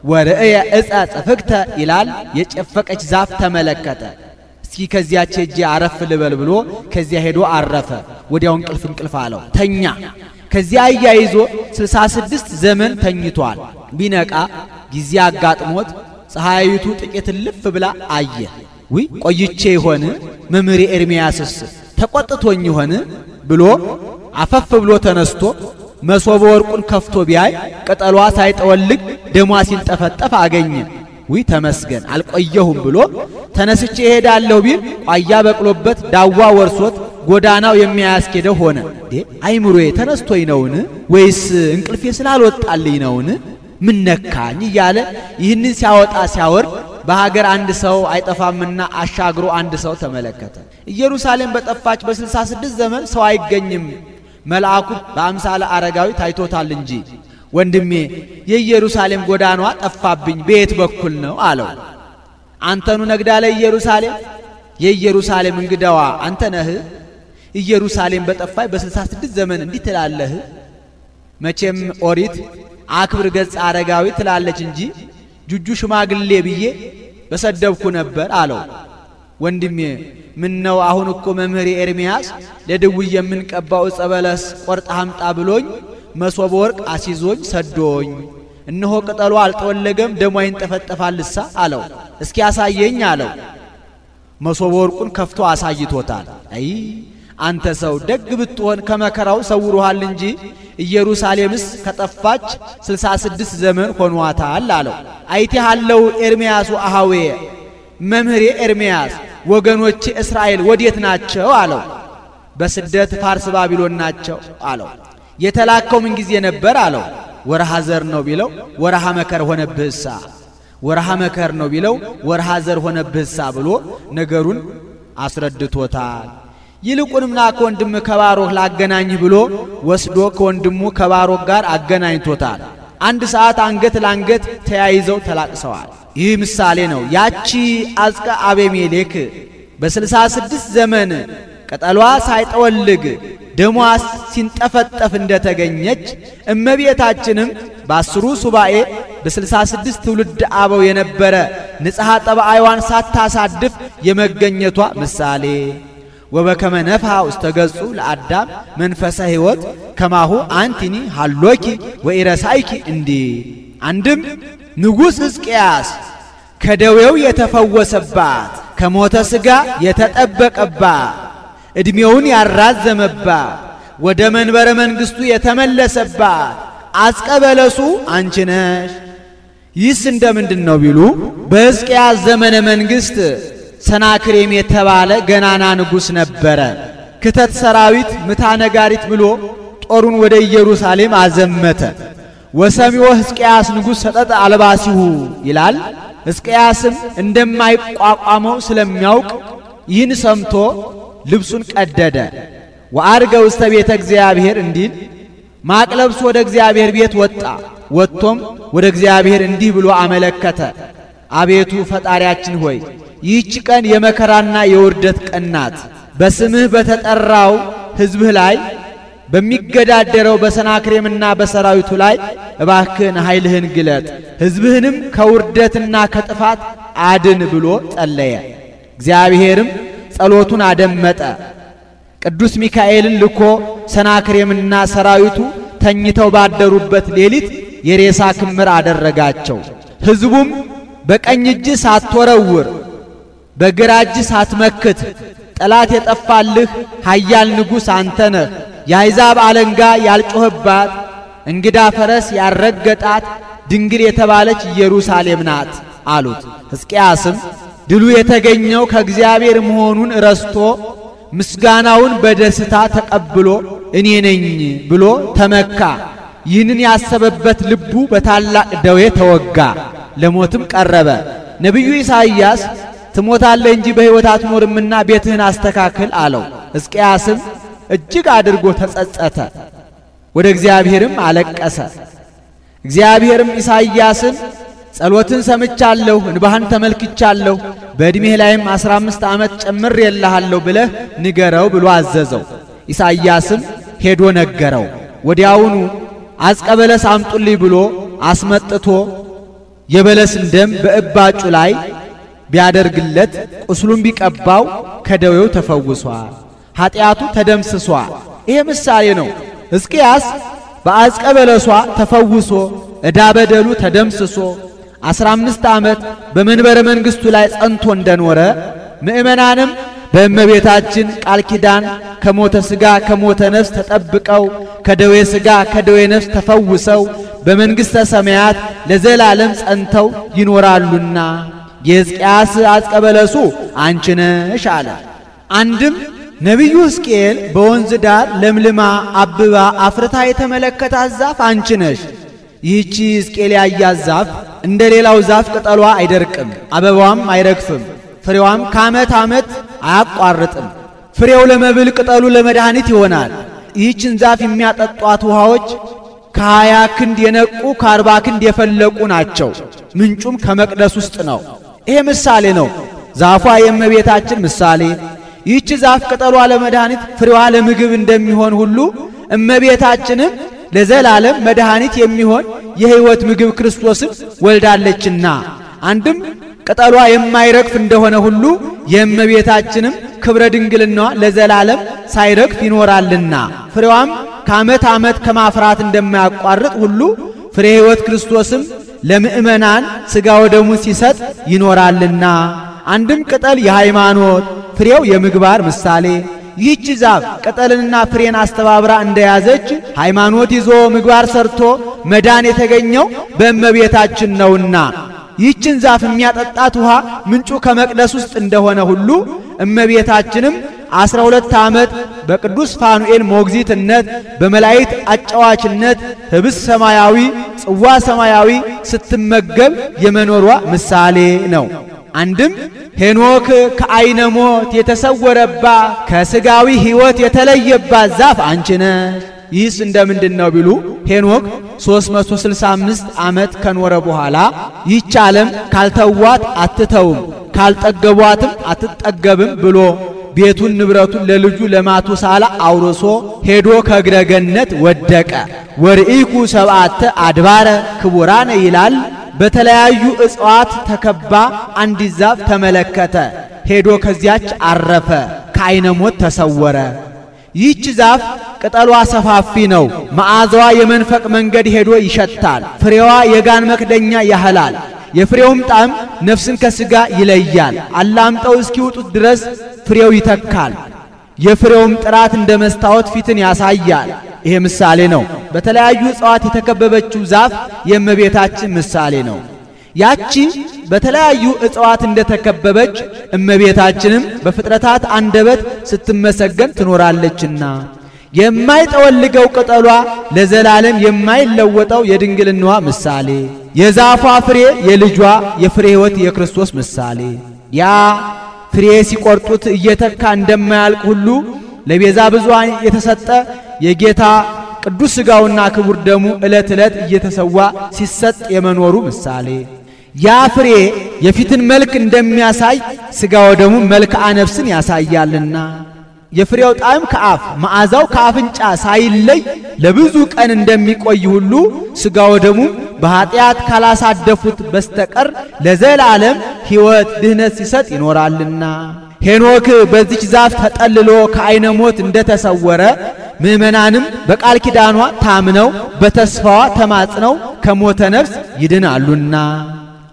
ወርእየ ዕፀ ጽፍግተ ይላል፣ የጨፈቀች ዛፍ ተመለከተ። እስኪ ከዚያች ሄጄ አረፍ ልበል ብሎ ከዚያ ሄዶ አረፈ። ወዲያው እንቅልፍ አለው፣ ተኛ። ከዚያ አያይዞ 66 ዘመን ተኝቷል። ቢነቃ ጊዜ አጋጥሞት ፀሐይቱ ጥቂት ልፍ ብላ አየ። ውይ ቆይቼ ይሆን መምህር ኤርምያስስ ተቆጥቶኝ ይሆን ብሎ አፈፍ ብሎ ተነስቶ መሶበ ወርቁን ከፍቶ ቢያይ ቅጠሏ ሳይጠወልግ ደሟ ሲንጠፈጠፍ አገኘ። ውይ ተመስገን አልቆየሁም ብሎ ተነስቼ እሄዳለሁ ቢል ቋያ በቅሎበት ዳዋ ወርሶት ጎዳናው የሚያስኬደው ሆነ። አይምሮዬ ተነስቶኝ ነውን ወይስ እንቅልፌ ስላልወጣልኝ ነውን? ምን ነካኝ እያለ ይህንን ሲያወጣ ሲያወርድ በሀገር አንድ ሰው አይጠፋምና አሻግሮ አንድ ሰው ተመለከተ። ኢየሩሳሌም በጠፋች በ66 ዘመን ሰው አይገኝም፣ መልአኩ በአምሳለ አረጋዊ ታይቶታል እንጂ ወንድሜ የኢየሩሳሌም ጎዳናዋ ጠፋብኝ በየት በኩል ነው አለው። አንተኑ ነግዳለ ኢየሩሳሌም የኢየሩሳሌም እንግዳዋ አንተ ነህ። ኢየሩሳሌም በጠፋች በ66 ዘመን እንዲህ ትላለህ? መቼም ኦሪት አክብር ገጽ አረጋዊ ትላለች እንጂ ጁጁ ሽማግሌ ብዬ በሰደብኩ ነበር አለው። ወንድሜ ምን ነው አሁን እኮ መምህር ኤርምያስ ለድውይ የምንቀባው ዕፀ በለስ ቆርጣ አምጣ ብሎኝ መሶበ ወርቅ አሲዞኝ ሰዶኝ፣ እነሆ ቅጠሉ አልተወለገም ደሟ ይንጠፈጠፋልሳ አለው። እስኪ ያሳየኝ አለው። መሶበ ወርቁን ከፍቶ አሳይቶታል። አይ አንተ ሰው ደግ ብትሆን ከመከራው ሰውሩሃል እንጂ ኢየሩሳሌምስ ከጠፋች 66 ዘመን ሆኗታል አለው። አይቴሃለው ኤርምያሱ አሃዌ መምህር ኤርምያስ ወገኖቼ እስራኤል ወዴት ናቸው አለው። በስደት ፋርስ ባቢሎን ናቸው አለው። የተላከው ምን ጊዜ ነበር አለው። ወርሃ ዘር ነው ቢለው ወርሃ መከር ሆነብህሳ፣ ወርሃ መከር ነው ቢለው ወርሃ ዘር ሆነብህሳ ብሎ ነገሩን አስረድቶታል። ይልቁንም ና ከወንድም ከባሮክ ላገናኝህ ብሎ ወስዶ ከወንድሙ ከባሮክ ጋር አገናኝቶታል። አንድ ሰዓት አንገት ላንገት ተያይዘው ተላቅሰዋል። ይህ ምሳሌ ነው። ያቺ አዝቀ አቤሜሌክ በ66 ዘመን ቅጠሏ ሳይጠወልግ ደሟ ሲንጠፈጠፍ እንደተገኘች እመቤታችንም በ10 ሱባኤ በ66 ትውልድ አበው የነበረ ንጽሐ ጠባይዋን ሳታሳድፍ የመገኘቷ ምሳሌ ወበከመ ነፍሐ ውስተ ገጹ ለአዳም መንፈሰ ሕይወት ከማሁ አንቲኒ ሃሎኪ ወኢረሳይኪ እንዲ አንድም ንጉሥ ሕዝቅያስ ከደዌው የተፈወሰባት ከሞተ ሥጋ የተጠበቀባት ዕድሜውን ያራዘመባት ወደ መንበረ መንግሥቱ የተመለሰባት አዝቀ በለሱ አንቺ ነሽ። ይህስ እንደምንድን ነው ቢሉ በሕዝቅያስ ዘመነ መንግሥት ሰናክሬም የተባለ ገናና ንጉሥ ነበረ። ክተት ሰራዊት ምታ ነጋሪት ብሎ ጦሩን ወደ ኢየሩሳሌም አዘመተ። ወሰሚዖ ሕዝቅያስ ንጉሥ ሰጠጠ አልባሲሁ ይላል። ሕዝቅያስም እንደማይቋቋመው ስለሚያውቅ ይህን ሰምቶ ልብሱን ቀደደ። ወአርገ ውስተ ቤተ እግዚአብሔር እንዲል ማቅ ለብሶ ወደ እግዚአብሔር ቤት ወጣ። ወጥቶም ወደ እግዚአብሔር እንዲህ ብሎ አመለከተ። አቤቱ ፈጣሪያችን ሆይ ይህች ቀን የመከራና የውርደት ቀን ናት። በስምህ በተጠራው ሕዝብህ ላይ በሚገዳደረው በሰናክሬምና በሰራዊቱ ላይ እባክህን ኃይልህን ግለጥ፣ ሕዝብህንም ከውርደትና ከጥፋት አድን ብሎ ጸለየ። እግዚአብሔርም ጸሎቱን አደመጠ። ቅዱስ ሚካኤልን ልኮ ሰናክሬምና ሰራዊቱ ተኝተው ባደሩበት ሌሊት የሬሳ ክምር አደረጋቸው። ሕዝቡም በቀኝ እጅ ሳትወረውር በግራ እጅ ሳትመክት ጠላት የጠፋልህ ኃያል ንጉሥ አንተ ነህ፣ የአሕዛብ አለንጋ ያልጮህባት እንግዳ ፈረስ ያረገጣት ድንግል የተባለች ኢየሩሳሌም ናት አሉት። ሕዝቅያስም ድሉ የተገኘው ከእግዚአብሔር መሆኑን ረስቶ ምስጋናውን በደስታ ተቀብሎ እኔ ነኝ ብሎ ተመካ። ይህንን ያሰበበት ልቡ በታላቅ ደዌ ተወጋ፣ ለሞትም ቀረበ። ነቢዩ ኢሳይያስ ትሞታለህ እንጂ በሕይወት አትኖርምና ቤትህን አስተካክል አለው። ሕዝቅያስም እጅግ አድርጎ ተጸጸተ፣ ወደ እግዚአብሔርም አለቀሰ። እግዚአብሔርም ኢሳይያስን ጸሎትን ሰምቻለሁ፣ እንባህን ተመልክቻለሁ፣ በዕድሜህ ላይም 15 ዓመት ጨምሬልሃለሁ ብለህ ንገረው ብሎ አዘዘው። ኢሳይያስም ሄዶ ነገረው። ወዲያውኑ አዝቀ በለስ አምጡልኝ ብሎ አስመጥቶ የበለስን ደም በእባጩ ላይ ቢያደርግለት ቁስሉን ቢቀባው ከደዌው ተፈውሷል፣ ኃጢአቱ ተደምስሷል። ይሄ ምሳሌ ነው። ሕዝቅያስ በአዝቀ በለሷ ተፈውሶ ዕዳ በደሉ ተደምስሶ 15 ዓመት በመንበረ መንግሥቱ ላይ ጸንቶ እንደኖረ ምእመናንም በእመቤታችን ቃል ኪዳን ከሞተ ሥጋ ከሞተ ነፍስ ተጠብቀው ከደዌ ሥጋ ከደዌ ነፍስ ተፈውሰው በመንግሥተ ሰማያት ለዘላለም ጸንተው ይኖራሉና የሕዝቅያስ አዝቀ በለሱ አንቺ ነሽ አለ። አንድም ነቢዩ ሕዝቅኤል በወንዝ ዳር ለምልማ አብባ አፍርታ የተመለከታት ዛፍ አንቺ ነሽ፣ ይህቺ ሕዝቅኤል ያያት ዛፍ እንደ ሌላው ዛፍ ቅጠሏ አይደርቅም፣ አበባዋም አይረግፍም፣ ፍሬዋም ከዓመት ዓመት አያቋርጥም። ፍሬው ለመብል ቅጠሉ ለመድኃኒት ይሆናል። ይህችን ዛፍ የሚያጠጧት ውሃዎች ከ20 ክንድ የነቁ ከ40 ክንድ የፈለቁ ናቸው። ምንጩም ከመቅደስ ውስጥ ነው። ይሄ ምሳሌ ነው። ዛፏ የእመቤታችን ምሳሌ። ይህች ዛፍ ቅጠሏ ለመድኃኒት ፍሬዋ ለምግብ እንደሚሆን ሁሉ እመቤታችንም ለዘላለም መድኃኒት የሚሆን የሕይወት ምግብ ክርስቶስን ወልዳለችና አንድም ቅጠሏ የማይረግፍ እንደሆነ ሁሉ የእመቤታችንም ክብረ ድንግልናዋ ለዘላለም ሳይረግፍ ይኖራልና ፍሬዋም ከዓመት ዓመት ከማፍራት እንደማያቋርጥ ሁሉ ፍሬ ሕይወት ክርስቶስም ለምእመናን ሥጋ ወደሙን ሲሰጥ ይኖራልና አንድም ቅጠል የሃይማኖት ፍሬው የምግባር ምሳሌ። ይህች ዛፍ ቅጠልንና ፍሬን አስተባብራ እንደያዘች ሃይማኖት ይዞ ምግባር ሰርቶ መዳን የተገኘው በእመቤታችን ነውና ይህችን ዛፍ የሚያጠጣት ውሃ ምንጩ ከመቅደስ ውስጥ እንደሆነ ሁሉ እመቤታችንም 12 ዓመት በቅዱስ ፋኑኤል ሞግዚትነት በመላእክት አጫዋችነት ህብስ ሰማያዊ ጽዋ ሰማያዊ ስትመገብ የመኖሯ ምሳሌ ነው። አንድም ሄኖክ ከዓይነ ሞት የተሰወረባ ከሥጋዊ ሕይወት የተለየባት ዛፍ አንቺ ነሽ። ይህስ እንደምንድን ነው ቢሉ ሄኖክ 365 ዓመት ከኖረ በኋላ ይህች ዓለም ካልተዋት አትተውም ካልጠገቧትም አትጠገብም ብሎ ቤቱን ንብረቱን ለልጁ ለማቱሳላ አውርሶ ሄዶ ከእግረ ገነት ወደቀ። ወርኢኩ ሰብዓተ አድባረ ክቡራነ ይላል። በተለያዩ እጽዋት ተከባ አንዲት ዛፍ ተመለከተ። ሄዶ ከዚያች አረፈ፣ ከዓይነ ሞት ተሰወረ። ይህች ዛፍ ቅጠሏ ሰፋፊ ነው። መዓዛዋ የመንፈቅ መንገድ ሄዶ ይሸታል። ፍሬዋ የጋን መክደኛ ያህላል። የፍሬውም ጣዕም ነፍስን ከሥጋ ይለያል። አላምጠው እስኪውጡት ድረስ ፍሬው ይተካል። የፍሬውም ጥራት እንደ መስታወት ፊትን ያሳያል። ይሄ ምሳሌ ነው። በተለያዩ እጽዋት የተከበበችው ዛፍ የእመቤታችን ምሳሌ ነው። ያቺ በተለያዩ እጽዋት እንደተከበበች እመቤታችንም በፍጥረታት አንደበት ስትመሰገን ትኖራለችና የማይጠወልገው ቅጠሏ ለዘላለም የማይለወጠው የድንግልናዋ ምሳሌ፣ የዛፏ ፍሬ የልጇ የፍሬ ሕይወት የክርስቶስ ምሳሌ። ያ ፍሬ ሲቆርጡት እየተካ እንደማያልቅ ሁሉ ለቤዛ ብዙኃን የተሰጠ የጌታ ቅዱስ ሥጋውና ክቡር ደሙ ዕለት ዕለት እየተሰዋ ሲሰጥ የመኖሩ ምሳሌ። ያ ፍሬ የፊትን መልክ እንደሚያሳይ ሥጋ ወደሙ መልክዓ ነፍስን ያሳያልና የፍሬው ጣዕም ከአፍ መዓዛው ከአፍንጫ ሳይለይ ለብዙ ቀን እንደሚቆይ ሁሉ ሥጋ ወደሙ በኃጢአት ካላሳደፉት በስተቀር ለዘላለም ሕይወት ድህነት ሲሰጥ ይኖራልና ሄኖክ በዚች ዛፍ ተጠልሎ ከዓይነ ሞት እንደተሰወረ ምእመናንም በቃል ኪዳኗ ታምነው በተስፋዋ ተማጽነው ከሞተ ነፍስ ይድናሉና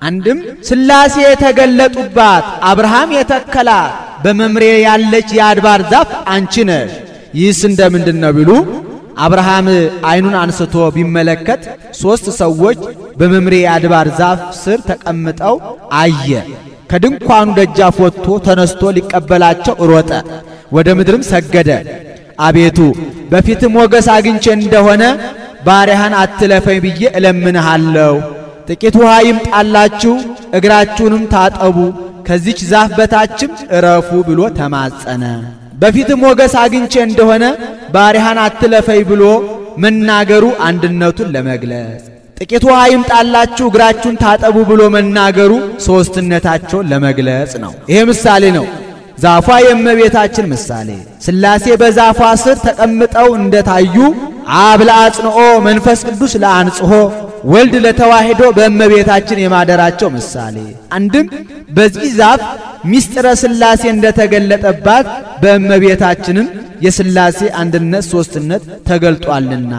አንድም ሥላሴ የተገለጡባት አብርሃም የተከላት በመምሬ ያለች የአድባር ዛፍ አንቺ ነሽ። ይህስ እንደምንድን ነው ቢሉ አብርሃም ዓይኑን አንስቶ ቢመለከት 3 ሰዎች በመምሬ የአድባር ዛፍ ስር ተቀምጠው አየ። ከድንኳኑ ደጃፍ ወጥቶ ተነስቶ ሊቀበላቸው ሮጠ፣ ወደ ምድርም ሰገደ። አቤቱ በፊት ሞገስ አግኝቼ እንደሆነ ባሪያህን አትለፈኝ ብዬ እለምንሃለሁ። ጥቂት ውሃ ይምጣላችሁ፣ እግራችሁንም ታጠቡ፣ ከዚች ዛፍ በታችም እረፉ ብሎ ተማጸነ። በፊት ሞገስ አግኝቼ እንደሆነ ባሪያህን አትለፈኝ ብሎ መናገሩ አንድነቱን ለመግለጽ፣ ጥቂት ውሃ ይምጣላችሁ እግራችሁን ታጠቡ ብሎ መናገሩ ሦስትነታቸውን ለመግለጽ ነው። ይሄ ምሳሌ ነው። ዛፏ የእመቤታችን ምሳሌ። ሥላሴ በዛፏ ስር ተቀምጠው እንደታዩ አብ ለአጽንኦ መንፈስ ቅዱስ ለአንጽሖ ወልድ ለተዋሂዶ በእመቤታችን የማደራቸው ምሳሌ። አንድም በዚህ ዛፍ ሚስጥረ ሥላሴ እንደተገለጠባት በእመቤታችንም የሥላሴ አንድነት ሦስትነት ተገልጧልና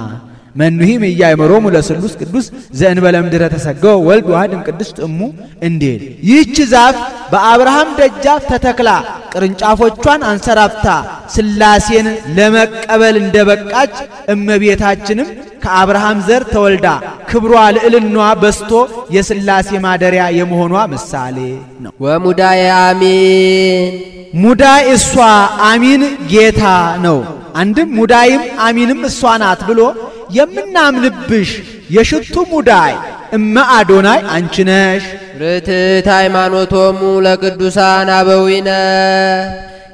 መኑሂም ኢያእመሮሙ ለስሉስ ቅዱስ ዘእንበለ ምድረ ተሰገው ወልድ ዋሕድም ቅድስት እሙ እንዴል። ይህች ዛፍ በአብርሃም ደጃፍ ተተክላ ቅርንጫፎቿን አንሰራፍታ ሥላሴን ለመቀበል እንደበቃች እመቤታችንም ከአብርሃም ዘር ተወልዳ ክብሯ ልዕልናዋ በስቶ የሥላሴ ማደሪያ የመሆኗ ምሳሌ ነው። ወሙዳየ አሚን ሙዳይ እሷ አሚን ጌታ ነው። አንድም ሙዳይም አሚንም እሷ ናት ብሎ የምናምንብሽ የሽቱ ሙዳይ እመ አዶናይ አንቺ ነሽ። ርትዕት ሃይማኖቶሙ ለቅዱሳን አበዊነ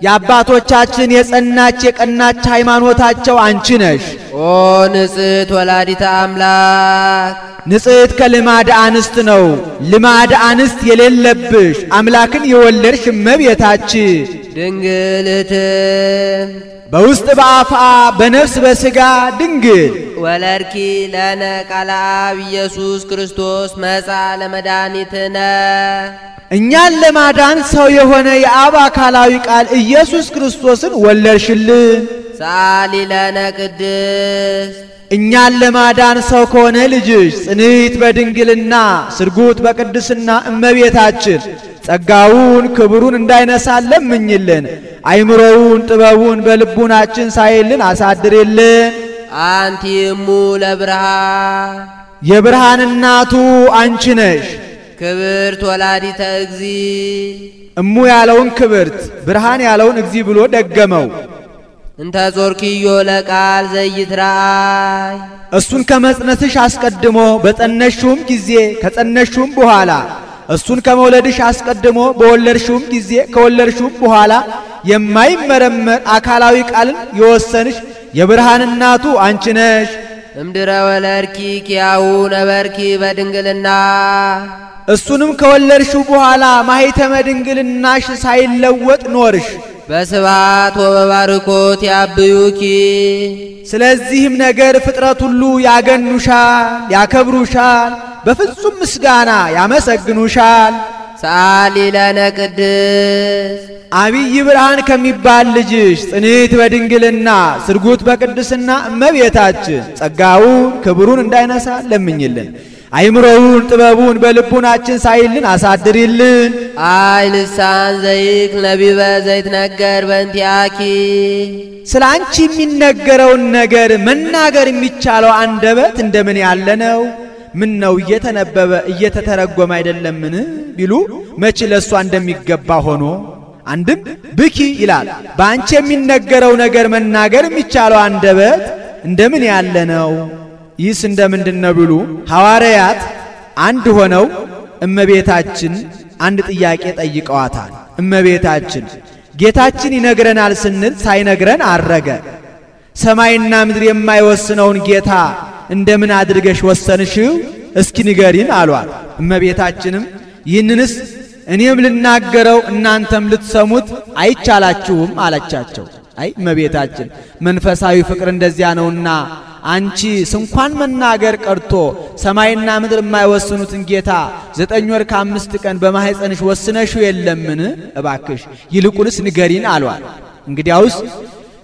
የአባቶቻችን የጸናች የቀናች ሃይማኖታቸው አንቺ ነሽ። ኦ ንጽሕት ወላዲተ አምላክ ንጽሕት ከልማድ አንስት ነው። ልማድ አንስት የሌለብሽ አምላክን የወለድሽ እመቤታችን ድንግልት በውስጥ በአፋ በነፍስ በሥጋ ድንግል ወለድኪ ለነ ቃለ አብ ኢየሱስ ክርስቶስ መጻ ለመድኃኒትነ እኛን ለማዳን ሰው የሆነ የአብ አካላዊ ቃል ኢየሱስ ክርስቶስን ወለድሽልን። ሰአሊ ለነ ቅድስት እኛን ለማዳን ሰው ከሆነ ልጅሽ ጽንዕት በድንግልና ስርጉት በቅድስና እመቤታችን ጸጋውን ክብሩን እንዳይነሳን ለምኝልን። አይምሮውን ጥበቡን በልቡናችን ሳይልን አሳድርልን። አንቲ እሙ ለብርሃን የብርሃን እናቱ አንቺ ነሽ። ክብርት ወላዲተ እግዚ እሙ ያለውን ክብርት ብርሃን ያለውን እግዚ ብሎ ደገመው። እንተ ጾርኪዮ ለቃል ዘይትራእይ እሱን ከመጽነስሽ አስቀድሞ በጸነሽውም ጊዜ ከጸነሽውም በኋላ እሱን ከመውለድሽ አስቀድሞ በወለድሽውም ጊዜ ከወለድሽውም በኋላ የማይመረመር አካላዊ ቃልን የወሰንሽ የብርሃን እናቱ አንቺ ነሽ። እምድረ ወለድኪ ኪያሁ ነበርኪ በድንግልና እሱንም ከወለድሽው በኋላ ማኅተመ ድንግልናሽ ሳይለወጥ ኖርሽ። በስብሐት ወበባርኮት ያብዩኪ ስለዚህም ነገር ፍጥረት ሁሉ ያገኑሻል፣ ያከብሩሻል፣ በፍጹም ምስጋና ያመሰግኑሻል። ሰአሊ ለነ ቅድስት አብይ ብርሃን ከሚባል ልጅሽ ጽንዕት በድንግልና ስርጉት በቅድስና እመቤታችን ጸጋውን ክብሩን እንዳይነሳ ለምኝልን። አይምሮውን ጥበቡን በልቡናችን ሳይልን አሳድሪልን። አይ ልሳን ዘይክ ነቢበ ዘይትነገር በእንቲአኪ ስለ አንቺ የሚነገረውን ነገር መናገር የሚቻለው አንደበት እንደምን ያለ ነው? ምን ነው እየተነበበ እየተተረጎመ አይደለምን ቢሉ መች ለሷ እንደሚገባ ሆኖ አንድም ብኪ ይላል። በአንቺ የሚነገረው ነገር መናገር የሚቻለው አንደበት እንደምን ያለ ነው? ይህስ እንደምንድነው ቢሉ ሐዋርያት አንድ ሆነው እመቤታችን አንድ ጥያቄ ጠይቀዋታል። እመቤታችን ጌታችን ይነግረናል ስንል ሳይነግረን አረገ። ሰማይና ምድር የማይወስነውን ጌታ እንደምን አድርገሽ ወሰንሽው? እስኪ ንገሪን አሏት። እመቤታችንም ይህንንስ እኔም ልናገረው እናንተም ልትሰሙት አይቻላችሁም አለቻቸው። አይ እመቤታችን መንፈሳዊ ፍቅር እንደዚያ ነውና አንቺ ስንኳን መናገር ቀርቶ ሰማይና ምድር የማይወስኑትን ጌታ 9 ወር ከ5 ቀን በማህፀንሽ ወስነሽው የለምን? እባክሽ ይልቁንስ ንገሪን አሏት። እንግዲያውስ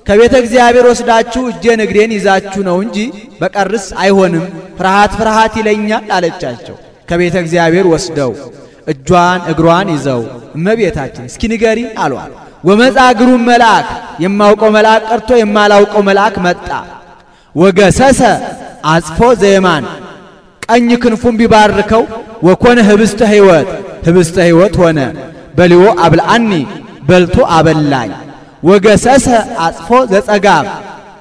ከቤተ እግዚአብሔር ወስዳችሁ እጄን እግሬን ይዛችሁ ነው እንጂ በቀርስ አይሆንም፣ ፍርሃት ፍርሃት ይለኛል አለቻቸው። ከቤተ እግዚአብሔር ወስደው እጇን እግሯን ይዘው እመቤታችን እስኪ ንገሪን አሏት። ወመጻ ግሩም መልአክ የማውቀው መልአክ ቀርቶ የማላውቀው መልአክ መጣ። ወገሰሰ አጽፎ ዘየማን ቀኝ ክንፉን ቢባርከው ወኮነ ህብስተ ሕይወት ህብስተ ሕይወት ሆነ። በሊዎ አብልአኒ በልቶ አበላኝ። ወገሰሰ አጽፎ ዘጸጋም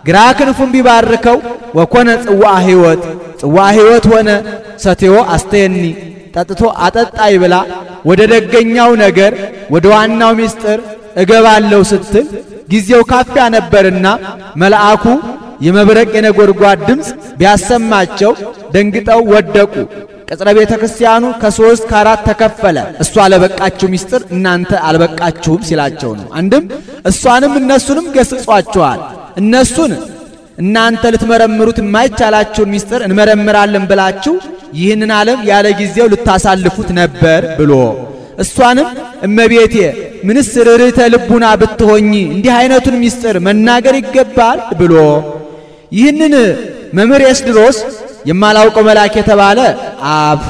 ግራ ክንፉን ቢባርከው ወኮነ ጽዋ ሕይወት ጽዋ ሕይወት ሆነ። ሰቴዎ አስተየኒ ጠጥቶ አጠጣይ ብላ ወደ ደገኛው ነገር ወደ ዋናው ምስጢር እገባለሁ ስትል ጊዜው ካፊያ ነበርና መልአኩ የመብረቅ የነጎድጓድ ድምፅ ቢያሰማቸው ደንግጠው ወደቁ። ቅጽረ ቤተ ክርስቲያኑ ከ3 ከ4 ተከፈለ። እሷ ለበቃችሁ ምስጢር እናንተ አልበቃችሁም ሲላቸው ነው። አንድም እሷንም እነሱንም ገስጿቸዋል። እነሱን እናንተ ልትመረምሩት የማይቻላችሁን ምስጢር እንመረምራለን ብላችሁ ይህንን ዓለም ያለ ጊዜው ልታሳልፉት ነበር ብሎ እሷንም እመቤቴ ምንስ ርኅርኅተ ልቡና ብትሆኚ እንዲህ አይነቱን ምስጢር መናገር ይገባል ብሎ ይህንን መምህር ኤስድሮስ የማላውቀው መልአክ የተባለ አብ፣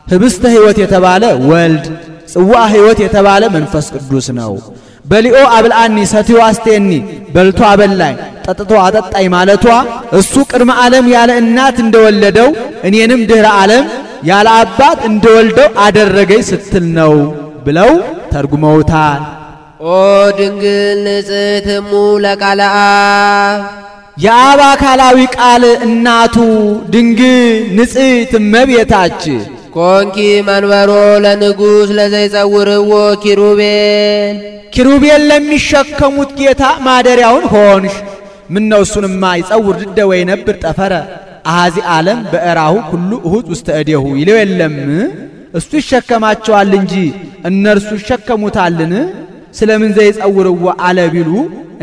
ህብስተ ሕይወት የተባለ ወልድ፣ ጽዋ ሕይወት የተባለ መንፈስ ቅዱስ ነው። በሊኦ አብልአኒ ሰትዮ አስቴኒ በልቶ አበላኝ ጠጥቶ አጠጣኝ ማለቷ እሱ ቅድመ ዓለም ያለ እናት እንደወለደው እኔንም ድኅረ ዓለም ያለ አባት እንደወልደው አደረገኝ ስትል ነው ብለው ተርጉመውታል። ኦ ድንግል ንጽሕት እሙ ለቃለ አብ የአብ አካላዊ ቃል እናቱ ድንግል ንጽሕት እመቤታችን ኮንኪ መንበሮ ለንጉሥ ለዘይጸውርዎ ኪሩቤል ኪሩቤል ለሚሸከሙት ጌታ ማደሪያውን ሆንሽ። ምነው እሱንማ ይጸውር ድደ ወይ ነብር ጠፈረ አሐዚ ዓለም በእራሁ ሁሉ እሁድ ውስተ እዴሁ ይለው የለም። እሱ ይሸከማቸዋል እንጂ እነርሱ ይሸከሙታልን? ስለምን ዘይጸውርዎ አለ ቢሉ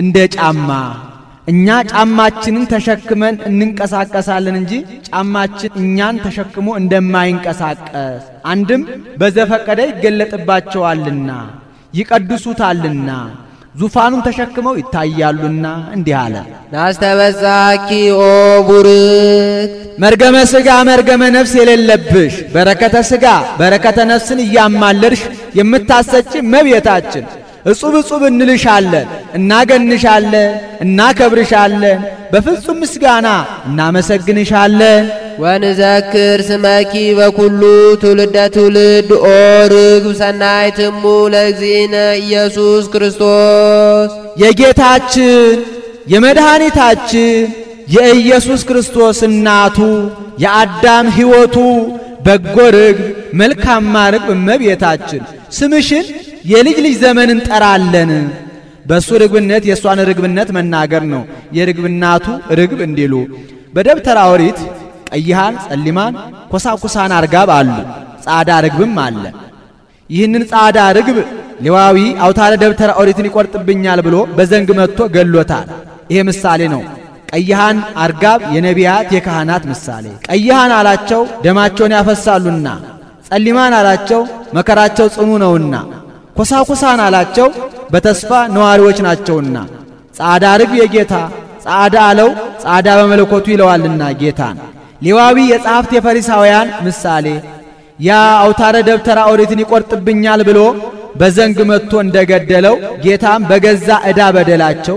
እንደ ጫማ እኛ ጫማችንን ተሸክመን እንንቀሳቀሳለን እንጂ ጫማችን እኛን ተሸክሞ እንደማይንቀሳቀስ አንድም በዘፈቀደ ይገለጥባቸዋልና ይቀድሱታልና ዙፋኑን ተሸክመው ይታያሉና እንዲህ አለ። ናስተበዛኪ ኦ ቡርክ መርገመ ሥጋ መርገመ ነፍስ የሌለብሽ በረከተ ሥጋ በረከተ ነፍስን እያማለድሽ የምታሰጪ እመቤታችን እጹብ እጹብ እንልሻለን፣ እናገንሻለን፣ እናከብርሻለን፣ በፍጹም ምስጋና እናመሰግንሻለን። ወንዘክር ስመኪ በኩሉ ትውልደ ትውልድ ኦ ርግብ ሰናይትሙ ለእግዚእነ ኢየሱስ ክርስቶስ የጌታችን የመድኃኒታችን የኢየሱስ ክርስቶስ እናቱ የአዳም ሕይወቱ በጎ ርግብ መልካማ ርግብ እመቤታችን ስምሽን የልጅ ልጅ ዘመን እንጠራለን። በሱ ርግብነት የሷን ርግብነት መናገር ነው። የርግብናቱ ርግብ እንዲሉ በደብተራ ኦሪት ቀይሃን ጸሊማን ኮሳኩሳን አርጋብ አሉ። ጻዳ ርግብም አለ። ይህንን ጻዳ ርግብ ሌዋዊ አውታረ ደብተራ ኦሪትን ይቆርጥብኛል ብሎ በዘንግ መጥቶ ገሎታል። ይሄ ምሳሌ ነው። ቀይሃን አርጋብ የነቢያት የካህናት ምሳሌ። ቀይሃን አላቸው ደማቸውን ያፈሳሉና፣ ጸሊማን አላቸው መከራቸው ጽኑ ነውና፣ ኮሳኩሳን አላቸው በተስፋ ነዋሪዎች ናቸውና። ጻዳ ርግብ የጌታ ጻዳ አለው ጻዳ በመለኮቱ ይለዋልና ጌታን። ሌዋዊ የጸሐፍት የፈሪሳውያን ምሳሌ። ያ አውታረ ደብተራ ኦሪትን ይቆርጥብኛል ብሎ በዘንግ መጥቶ እንደገደለው ጌታም በገዛ ዕዳ በደላቸው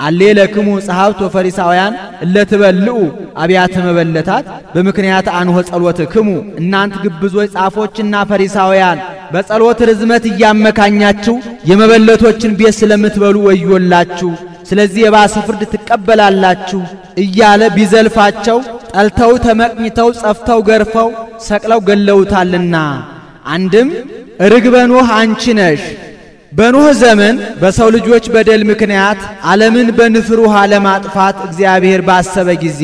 አሌለክሙ ጸሐፍት ወፈሪሳውያን እለትበልዑ አብያተ መበለታት በምክንያት አንሆ ጸሎትክሙ እናንት ግብዞች ጻፎችና ፈሪሳውያን በጸሎት ርዝመት እያመካኛችሁ የመበለቶችን ቤት ስለምትበሉ ወዮላችሁ፣ ስለዚህ የባሰ ፍርድ ትቀበላላችሁ እያለ ቢዘልፋቸው ጠልተው ተመቅኝተው ጸፍተው ገርፈው ሰቅለው ገለውታልና። አንድም ርግበ ኖህ አንቺ ነሽ። በኖህ ዘመን በሰው ልጆች በደል ምክንያት ዓለምን በንፍር ውሃ ለማጥፋት እግዚአብሔር ባሰበ ጊዜ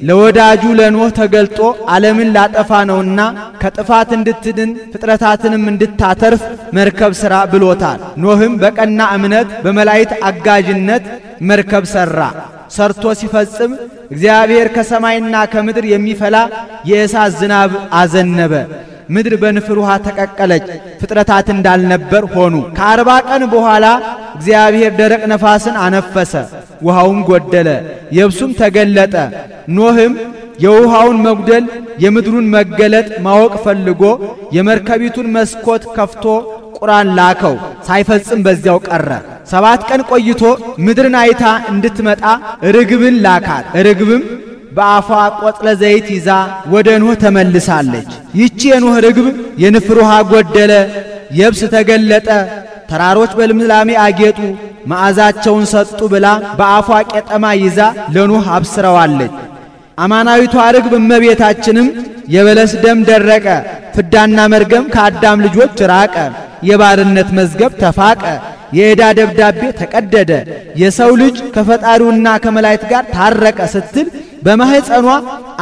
ለወዳጁ ለኖህ ተገልጦ ዓለምን ላጠፋ ነውና ከጥፋት እንድትድን ፍጥረታትንም እንድታተርፍ መርከብ ሥራ ብሎታል። ኖህም በቀና እምነት በመላእክት አጋዥነት መርከብ ሠራ። ሰርቶ ሲፈጽም እግዚአብሔር ከሰማይና ከምድር የሚፈላ የእሳት ዝናብ አዘነበ። ምድር በንፍር ውሃ ተቀቀለች፣ ፍጥረታት እንዳልነበር ሆኑ። ከ40 ቀን በኋላ እግዚአብሔር ደረቅ ነፋስን አነፈሰ፣ ውሃውም ጎደለ፣ የብሱም ተገለጠ። ኖህም የውሃውን መጉደል የምድሩን መገለጥ ማወቅ ፈልጎ የመርከቢቱን መስኮት ከፍቶ ቁራን ላከው፣ ሳይፈጽም በዚያው ቀረ። 7 ቀን ቆይቶ ምድርን አይታ እንድትመጣ ርግብን ላካት። ርግብም በአፏ ቆጥለ ዘይት ይዛ ወደ ኖህ ተመልሳለች። ይቺ የኖህ ርግብ የንፍር ውሃ ጎደለ፣ የብስ ተገለጠ፣ ተራሮች በልምላሜ አጌጡ፣ መዓዛቸውን ሰጡ ብላ በአፏ ቄጠማ ይዛ ለኖህ አብስረዋለች። አማናዊቷ ርግብ እመቤታችንም የበለስ ደም ደረቀ፣ ፍዳና መርገም ከአዳም ልጆች ራቀ፣ የባርነት መዝገብ ተፋቀ፣ የዕዳ ደብዳቤ ተቀደደ፣ የሰው ልጅ ከፈጣሪውና ከመላእክት ጋር ታረቀ ስትል በማህፀኗ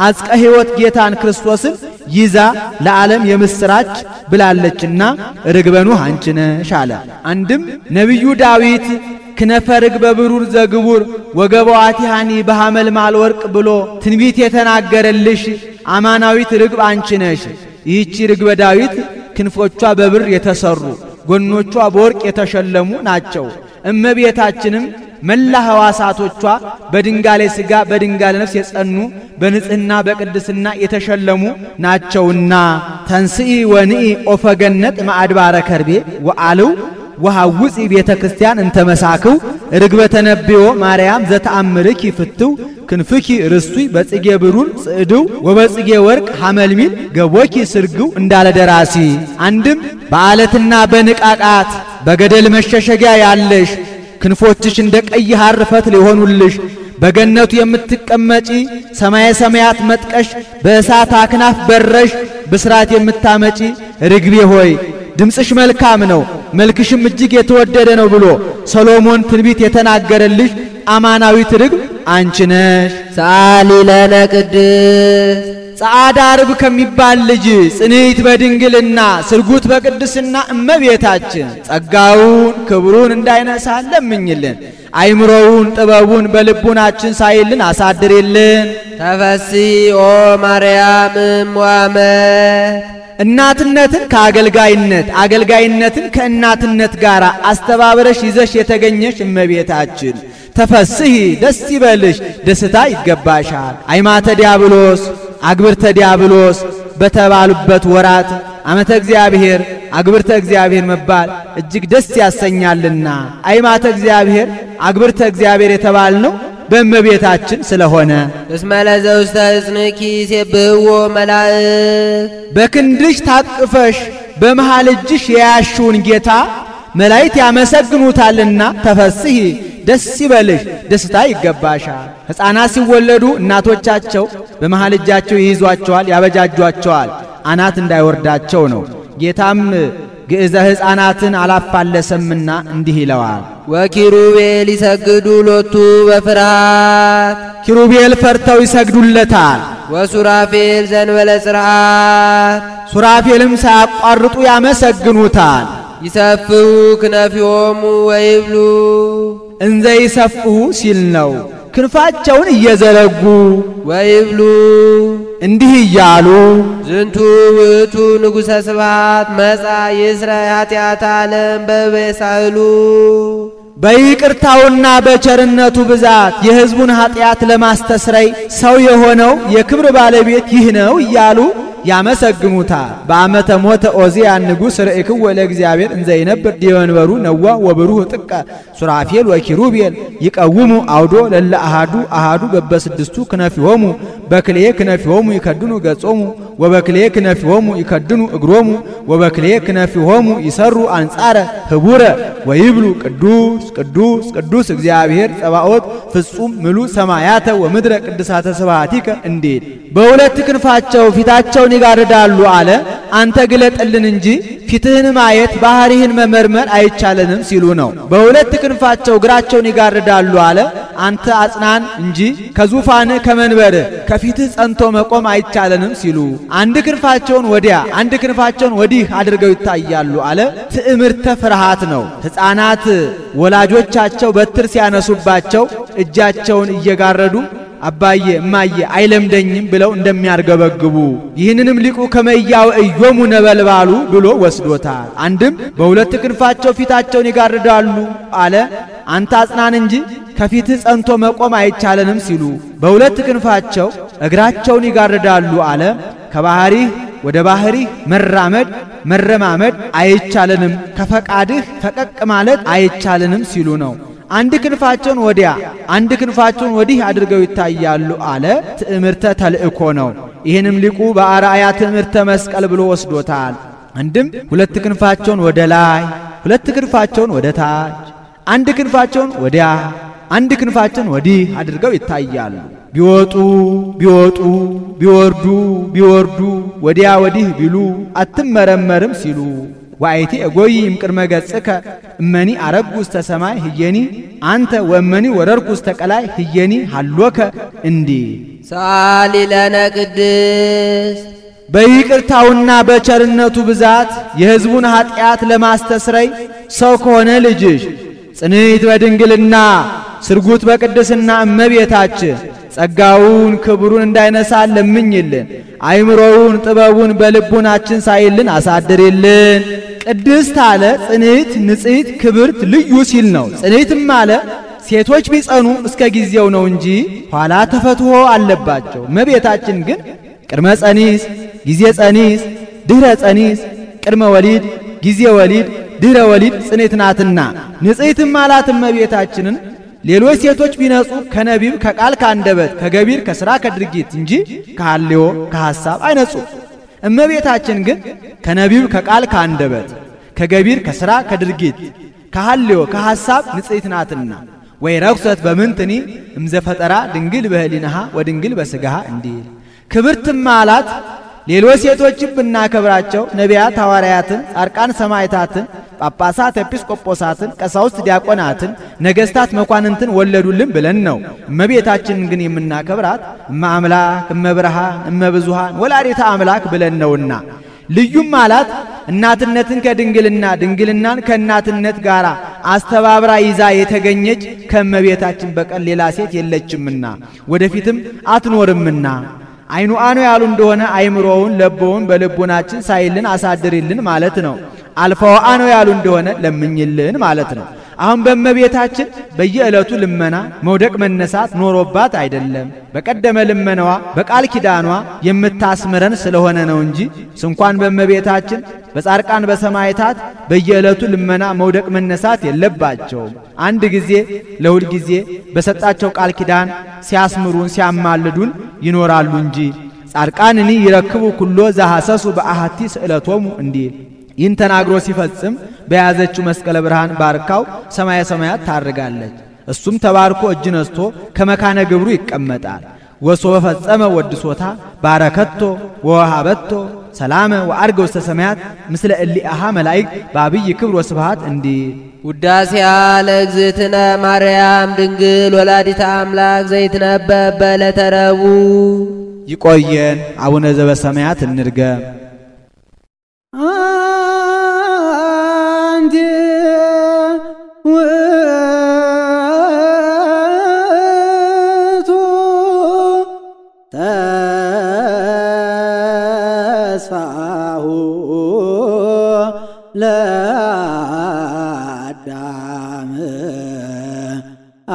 አጽቀ ሕይወት ጌታን ክርስቶስን ይዛ ለዓለም የምስራች ብላለችና ርግበ ኖህ አንቺ ነሽ አለ። አንድም ነቢዩ ዳዊት ክነፈ ርግበ ብሩር ዘግቡር ወገበዋቲሃኒ በሐመልማል ወርቅ ብሎ ትንቢት የተናገረልሽ አማናዊት ርግብ አንቺ ነሽ። ይህቺ ርግበ ዳዊት ክንፎቿ በብር የተሰሩ ጎኖቿ በወርቅ የተሸለሙ ናቸው። እመቤታችንም መላ ሕዋሳቶቿ በድንጋሌ ሥጋ በድንጋሌ ነፍስ የጸኑ በንጽሕና በቅድስና የተሸለሙ ናቸውና ተንስኢ ወንኢ ኦፈገነት ማዕድባረ ከርቤ ወአልው ወሐውፂ ቤተ ክርስቲያን እንተመሳክው ርግበ ተነብዮ ማርያም ዘተአምርኪ ፍትው ክንፍኪ ርስቱይ በጽጌ ብሩር ጽዕድው ወበጽጌ ወርቅ ሐመልሚል ገቦኪ ስርግው እንዳለ ደራሲ። አንድም በዓለትና በንቃቃት በገደል መሸሸጊያ ያለሽ ክንፎችሽ እንደ ቀይ ሐር ፈትል የሆኑልሽ በገነቱ የምትቀመጪ ሰማየ ሰማያት መጥቀሽ በእሳት አክናፍ በረሽ ብስራት የምታመጪ ርግቤ ሆይ ድምፅሽ መልካም ነው፣ መልክሽም እጅግ የተወደደ ነው ብሎ ሰሎሞን ትንቢት የተናገረልሽ አማናዊት ርግብ አንቺ ነሽ። ሰአሊ ለነ ቅድስት ጸዓዳ ርግብ ከሚባል ልጅ ጽንዕት በድንግልና ስርጉት በቅድስና እመቤታችን ጸጋውን ክብሩን እንዳይነሳ ለምኝልን። አይምሮውን ጥበቡን በልቡናችን ሳይልን አሳድርልን። ተፈሥሒ ኦ ማርያም እምዋመ እናትነትን ከአገልጋይነት አገልጋይነትን ከእናትነት ጋር አስተባብረሽ ይዘሽ የተገኘሽ እመቤታችን ተፈሥሒ ደስ ይበልሽ፣ ደስታ ይገባሻል። አይማተ ዲያብሎስ አግብርተ ዲያብሎስ በተባሉበት ወራት ዓመተ እግዚአብሔር አግብርተ እግዚአብሔር መባል እጅግ ደስ ያሰኛልና አይማተ እግዚአብሔር አግብርተ እግዚአብሔር የተባልነው በእመቤታችን ስለሆነ እስመ ለዘውስተ እጽንኪ ይሴብሕዎ መላእክት በክንድሽ ታቅፈሽ በመሃል እጅሽ የያሽውን ጌታ መላእክት ያመሰግኑታልና ተፈሥሒ ደስ ይበልሽ፣ ደስታ ይገባሻል። ሕፃናት ሲወለዱ እናቶቻቸው በመሃል እጃቸው ይይዟቸዋል፣ ያበጃጇቸዋል አናት እንዳይወርዳቸው ነው። ጌታም ግዕዘ ሕፃናትን አላፋለሰምና እንዲህ ይለዋል። ወኪሩቤል ይሰግዱ ሎቱ በፍርሃት ኪሩቤል ፈርተው ይሰግዱለታል። ወሱራፌል ዘንበለ ጽርዓት ሱራፌልም ሳያቋርጡ ያመሰግኑታል። ይሰፍሑ ክነፊሆሙ ወይብሉ እንዘ ይሰፍሑ ሲል ነው። ክንፋቸውን እየዘረጉ ወይብሉ እንዲህ እያሉ ዝንቱ ውእቱ ንጉሠ ስብሐት መጻ ይስረይ ኃጢአተ ዓለም በበሳህሉ በይቅርታውና በቸርነቱ ብዛት የሕዝቡን ኃጢአት ለማስተስረይ ሰው የሆነው የክብር ባለቤት ይህ ነው እያሉ ያመሰግኑታል። በዓመተ ሞተ ዖዝያን ንጉሥ ርእይክዎ ለእግዚአብሔር እንዘ ይነብር ዲበ መንበሩ ነዋ ወብሩህ ጥቀ ሱራፌል ወኪሩቤል ይቀውሙ አውዶ ለለ አሃዱ አሃዱ በበስድስቱ ክነፊሆሙ በክልኤ ክነፊሆሙ ይከድኑ ገጾሙ ወበክልኤ ክነፊሆሙ ይከድኑ እግሮሙ ወበክልኤ ክነፊሆሙ ይሰሩ አንጻረ ህቡረ ወይብሉ ቅዱስ ቅዱስ ቅዱስ እግዚአብሔር ጸባኦት ፍጹም ምሉ ሰማያተ ወምድረ ቅድሳተ ስብሐቲከ እንዴት በሁለት ክንፋቸው ፊታቸውን ይጋርዳሉ አለ። አንተ ግለጥልን እንጂ ፊትህን ማየት ባህሪህን መመርመር አይቻለንም ሲሉ ነው። በሁለት ክንፋቸው እግራቸውን ይጋርዳሉ አለ። አንተ አጽናን እንጂ ከዙፋንህ ከመንበርህ ከፊትህ ጸንቶ መቆም አይቻለንም ሲሉ አንድ ክንፋቸውን ወዲያ አንድ ክንፋቸውን ወዲህ አድርገው ይታያሉ አለ። ትዕምርተ ፍርሃት ነው። ሕፃናት ወላጆቻቸው በትር ሲያነሱባቸው እጃቸውን እየጋረዱ አባዬ እማዬ አይለምደኝም ብለው እንደሚያርገበግቡ ይህንንም ሊቁ ከመያው እዮሙ ነበልባሉ ብሎ ወስዶታል። አንድም በሁለት ክንፋቸው ፊታቸውን ይጋርዳሉ አለ። አንተ አጽናን እንጂ ከፊትህ ጸንቶ መቆም አይቻለንም ሲሉ በሁለት ክንፋቸው እግራቸውን ይጋርዳሉ አለ። ከባህሪህ ወደ ባህሪህ መራመድ መረማመድ አይቻለንም፣ ከፈቃድህ ፈቀቅ ማለት አይቻለንም ሲሉ ነው። አንድ ክንፋቸውን ወዲያ አንድ ክንፋቸውን ወዲህ አድርገው ይታያሉ አለ። ትዕምርተ ተልእኮ ነው። ይህንም ሊቁ በአርአያ ትዕምርተ መስቀል ብሎ ወስዶታል። አንድም ሁለት ክንፋቸውን ወደ ላይ ሁለት ክንፋቸውን ወደ ታች አንድ ክንፋቸውን ወዲያ አንድ ክንፋቸውን ወዲህ አድርገው ይታያሉ። ቢወጡ ቢወጡ ቢወርዱ ቢወርዱ ወዲያ ወዲህ ቢሉ አትመረመርም ሲሉ ዋይቲ እጎይም ቅድመ ገጽከ እመኒ አረጉ ውስተ ሰማይ ህየኒ አንተ ወመኒ ወረርኩ ውስተ ቀላይ ህየኒ ሃሎከ እንዲህ ሰአሊ ለነ ቅድስት በይቅርታውና በቸርነቱ ብዛት የሕዝቡን ኃጢአት ለማስተስረይ ሰው ከሆነ ልጅሽ ጽንዕት በድንግልና ስርጉት በቅድስና እመቤታችን ጸጋውን ክብሩን እንዳይነሳ ለምኝልን። አይምሮውን ጥበቡን በልቡናችን ሳይልን አሳድርልን። ቅድስት አለ ጽንዕት ንጽሕት ክብርት ልዩ ሲል ነው። ጽንዕትም አለ ሴቶች ቢጸኑ እስከ ጊዜው ነው እንጂ ኋላ ተፈትሖ አለባቸው። እመቤታችን ግን ቅድመ ጸኒስ ጊዜ ጸኒስ ድህረ ጸኒስ ቅድመ ወሊድ ጊዜ ወሊድ ድህረ ወሊድ ጽንዕት ናትና ንጽሕትም አላት እመቤታችንን። ሌሎች ሴቶች ቢነጹ ከነቢብ ከቃል ከአንደበት ከገቢር ከሥራ ከድርጊት እንጂ ከሐልዮ ከሐሳብ አይነጹ። እመቤታችን ግን ከነቢብ ከቃል ከአንደበት ከገቢር ከሥራ ከድርጊት ከሐልዮ ከሐሳብ ንጽሕት ናትና ወይ ረክሰት በምንትኒ እምዘፈጠራ ድንግል በህሊናሃ ወድንግል በስጋሃ እንዲል ክብርትም አላት። ሌሎች ሴቶችም ብናከብራቸው ነቢያት፣ ሐዋርያትን፣ ጻድቃን፣ ሰማዕታትን፣ ጳጳሳት፣ ኤጲስቆጶሳትን፣ ቀሳውስት፣ ዲያቆናትን፣ ነገሥታት፣ መኳንንትን ወለዱልን ብለን ነው። እመቤታችንን ግን የምናከብራት እመ አምላክ፣ እመ ብርሃን፣ እመ ብዙኃን ወላዲተ አምላክ ብለን ነውና ልዩም አላት። እናትነትን ከድንግልና ድንግልናን ከእናትነት ጋር አስተባብራ ይዛ የተገኘች ከእመቤታችን በቀር ሌላ ሴት የለችምና ወደፊትም አትኖርምና አይኑ አኖ ያሉ እንደሆነ አይምሮውን ለቦውን በልቡናችን ሳይልን አሳድሪልን ማለት ነው። አልፋው አኖ ያሉ እንደሆነ ለምኝልን ማለት ነው። አሁን በእመቤታችን በየዕለቱ ልመና መውደቅ መነሳት ኖሮባት አይደለም። በቀደመ ልመናዋ በቃል ኪዳኗ የምታስምረን ስለሆነ ነው እንጂ እንኳን በእመቤታችን በጻድቃን በሰማዕታት በየዕለቱ ልመና መውደቅ መነሳት የለባቸውም። አንድ ጊዜ ለሁል ጊዜ በሰጣቸው ቃል ኪዳን ሲያስምሩን ሲያማልዱን ይኖራሉ እንጂ ጻድቃንኒ ይረክቡ ኩሎ ዘሐሰሱ በአሐቲ ስእለቶሙ እንዲል ይህን ተናግሮ ሲፈጽም በያዘችው መስቀለ ብርሃን ባርካው ሰማየ ሰማያት ታርጋለች። እሱም ተባርኮ እጅ ነስቶ ከመካነ ግብሩ ይቀመጣል። ወሶበ ፈጸመ ወድሶታ ባረከቶ ወሃበቶ ሰላመ ወአርገ ውስተ ሰማያት ምስለ እሊአሃ መላእክት በአብይ ክብር ወስብሐት እንዲል ውዳሴያ ለእግዝእትነ ማርያም ድንግል ወላዲተ አምላክ ዘይትነበብ በዕለተ ረቡዕ። ይቆየን። አቡነ ዘበሰማያት እንድገም። አንቲ ውእቱ ተስፋሁ ለአዳም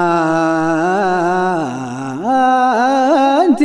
አንቲ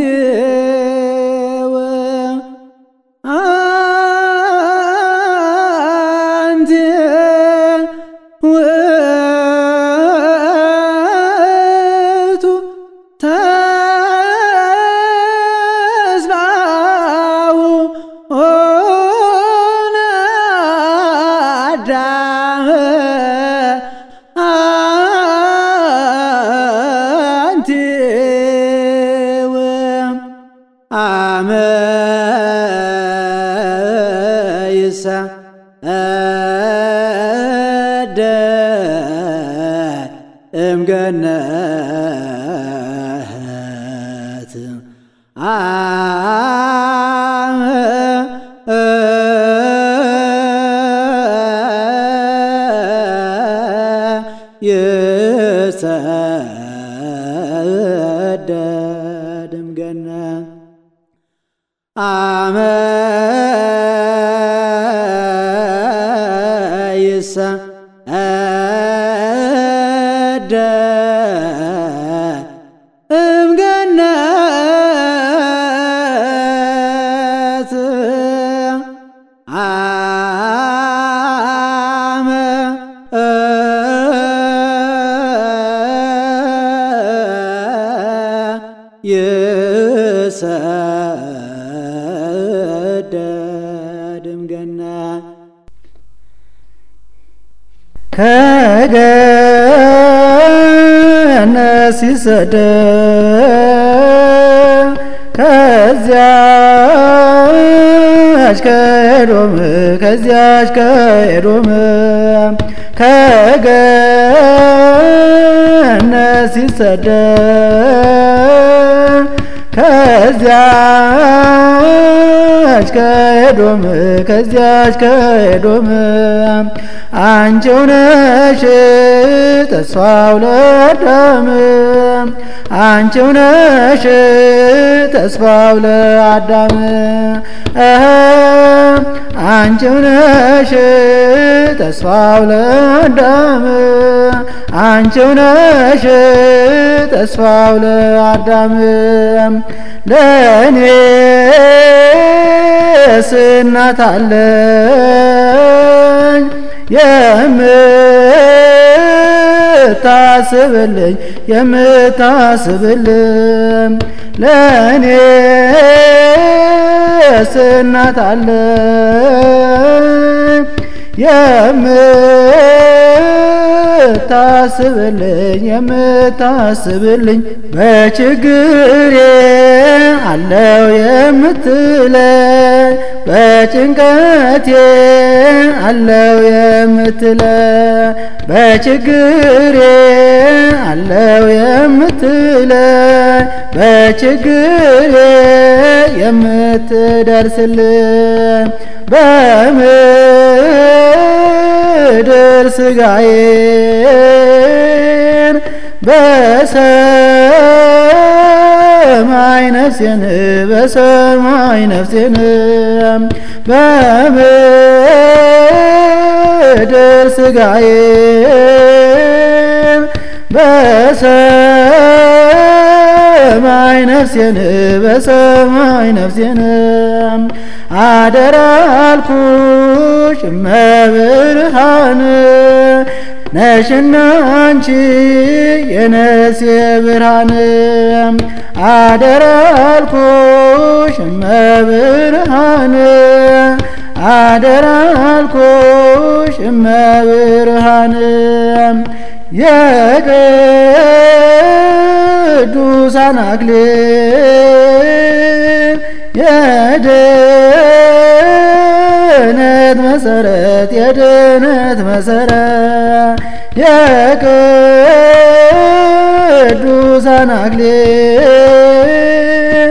እምገነት ይሰደድ እምገነት አመ ይሰደድ እምገነት አመ ይሰደድ እምገነት ከገነት ሲሰደድ ከዚያች ከኤዶም ከገነት ሲሰደድ ከዚያች ከኤዶም አንቺው ነሽ ተስፋው ለአዳም አንቺው ነሽ ተስፋው ለአዳም አንቺው ነሽ ተስፋው ለአዳም አንቺው ነሽ ተስፋው ለአዳም ለእኔስ እናት አለኝ የምታስብልኝ ለእኔስ እናት አለኝ የምታስብልኝ በችግሬ አለው የምትለኝ በጭንቀቴ አለው የምትለኝ በችግሬ አለው የምትለኝ በችግሬ የምትደርስልኝ በምድር ሥጋዬን በሰማይ ነፍሴን በሰማይ ነፍሴን በምድር ሥጋዬን በሰማይ ነፍሴን በሰማይ ነፍሴን አደራ አልኩሽ እመብርሃን ነሽና አንቺ የነፍሴ ብርሃን አደራ አልኩሽ እመብርሃን አደራ አልኩሽ እመብርሃን የቅዱሳን አክሊል የድነት መሰረት የድነት መሰረት የቅዱሳን አክሊል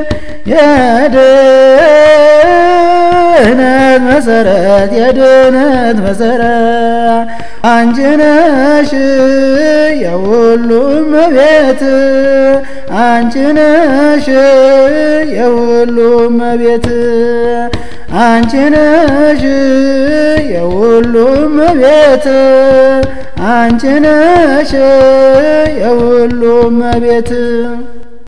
የድነት መሰረት የድነት መሰረት አንቺ ነሽ የሁሉም እመቤት አንቺ ነሽ የሁሉም እመቤት አንቺ ነሽ የሁሉም እመቤት አንቺ ነሽ የሁሉም እመቤት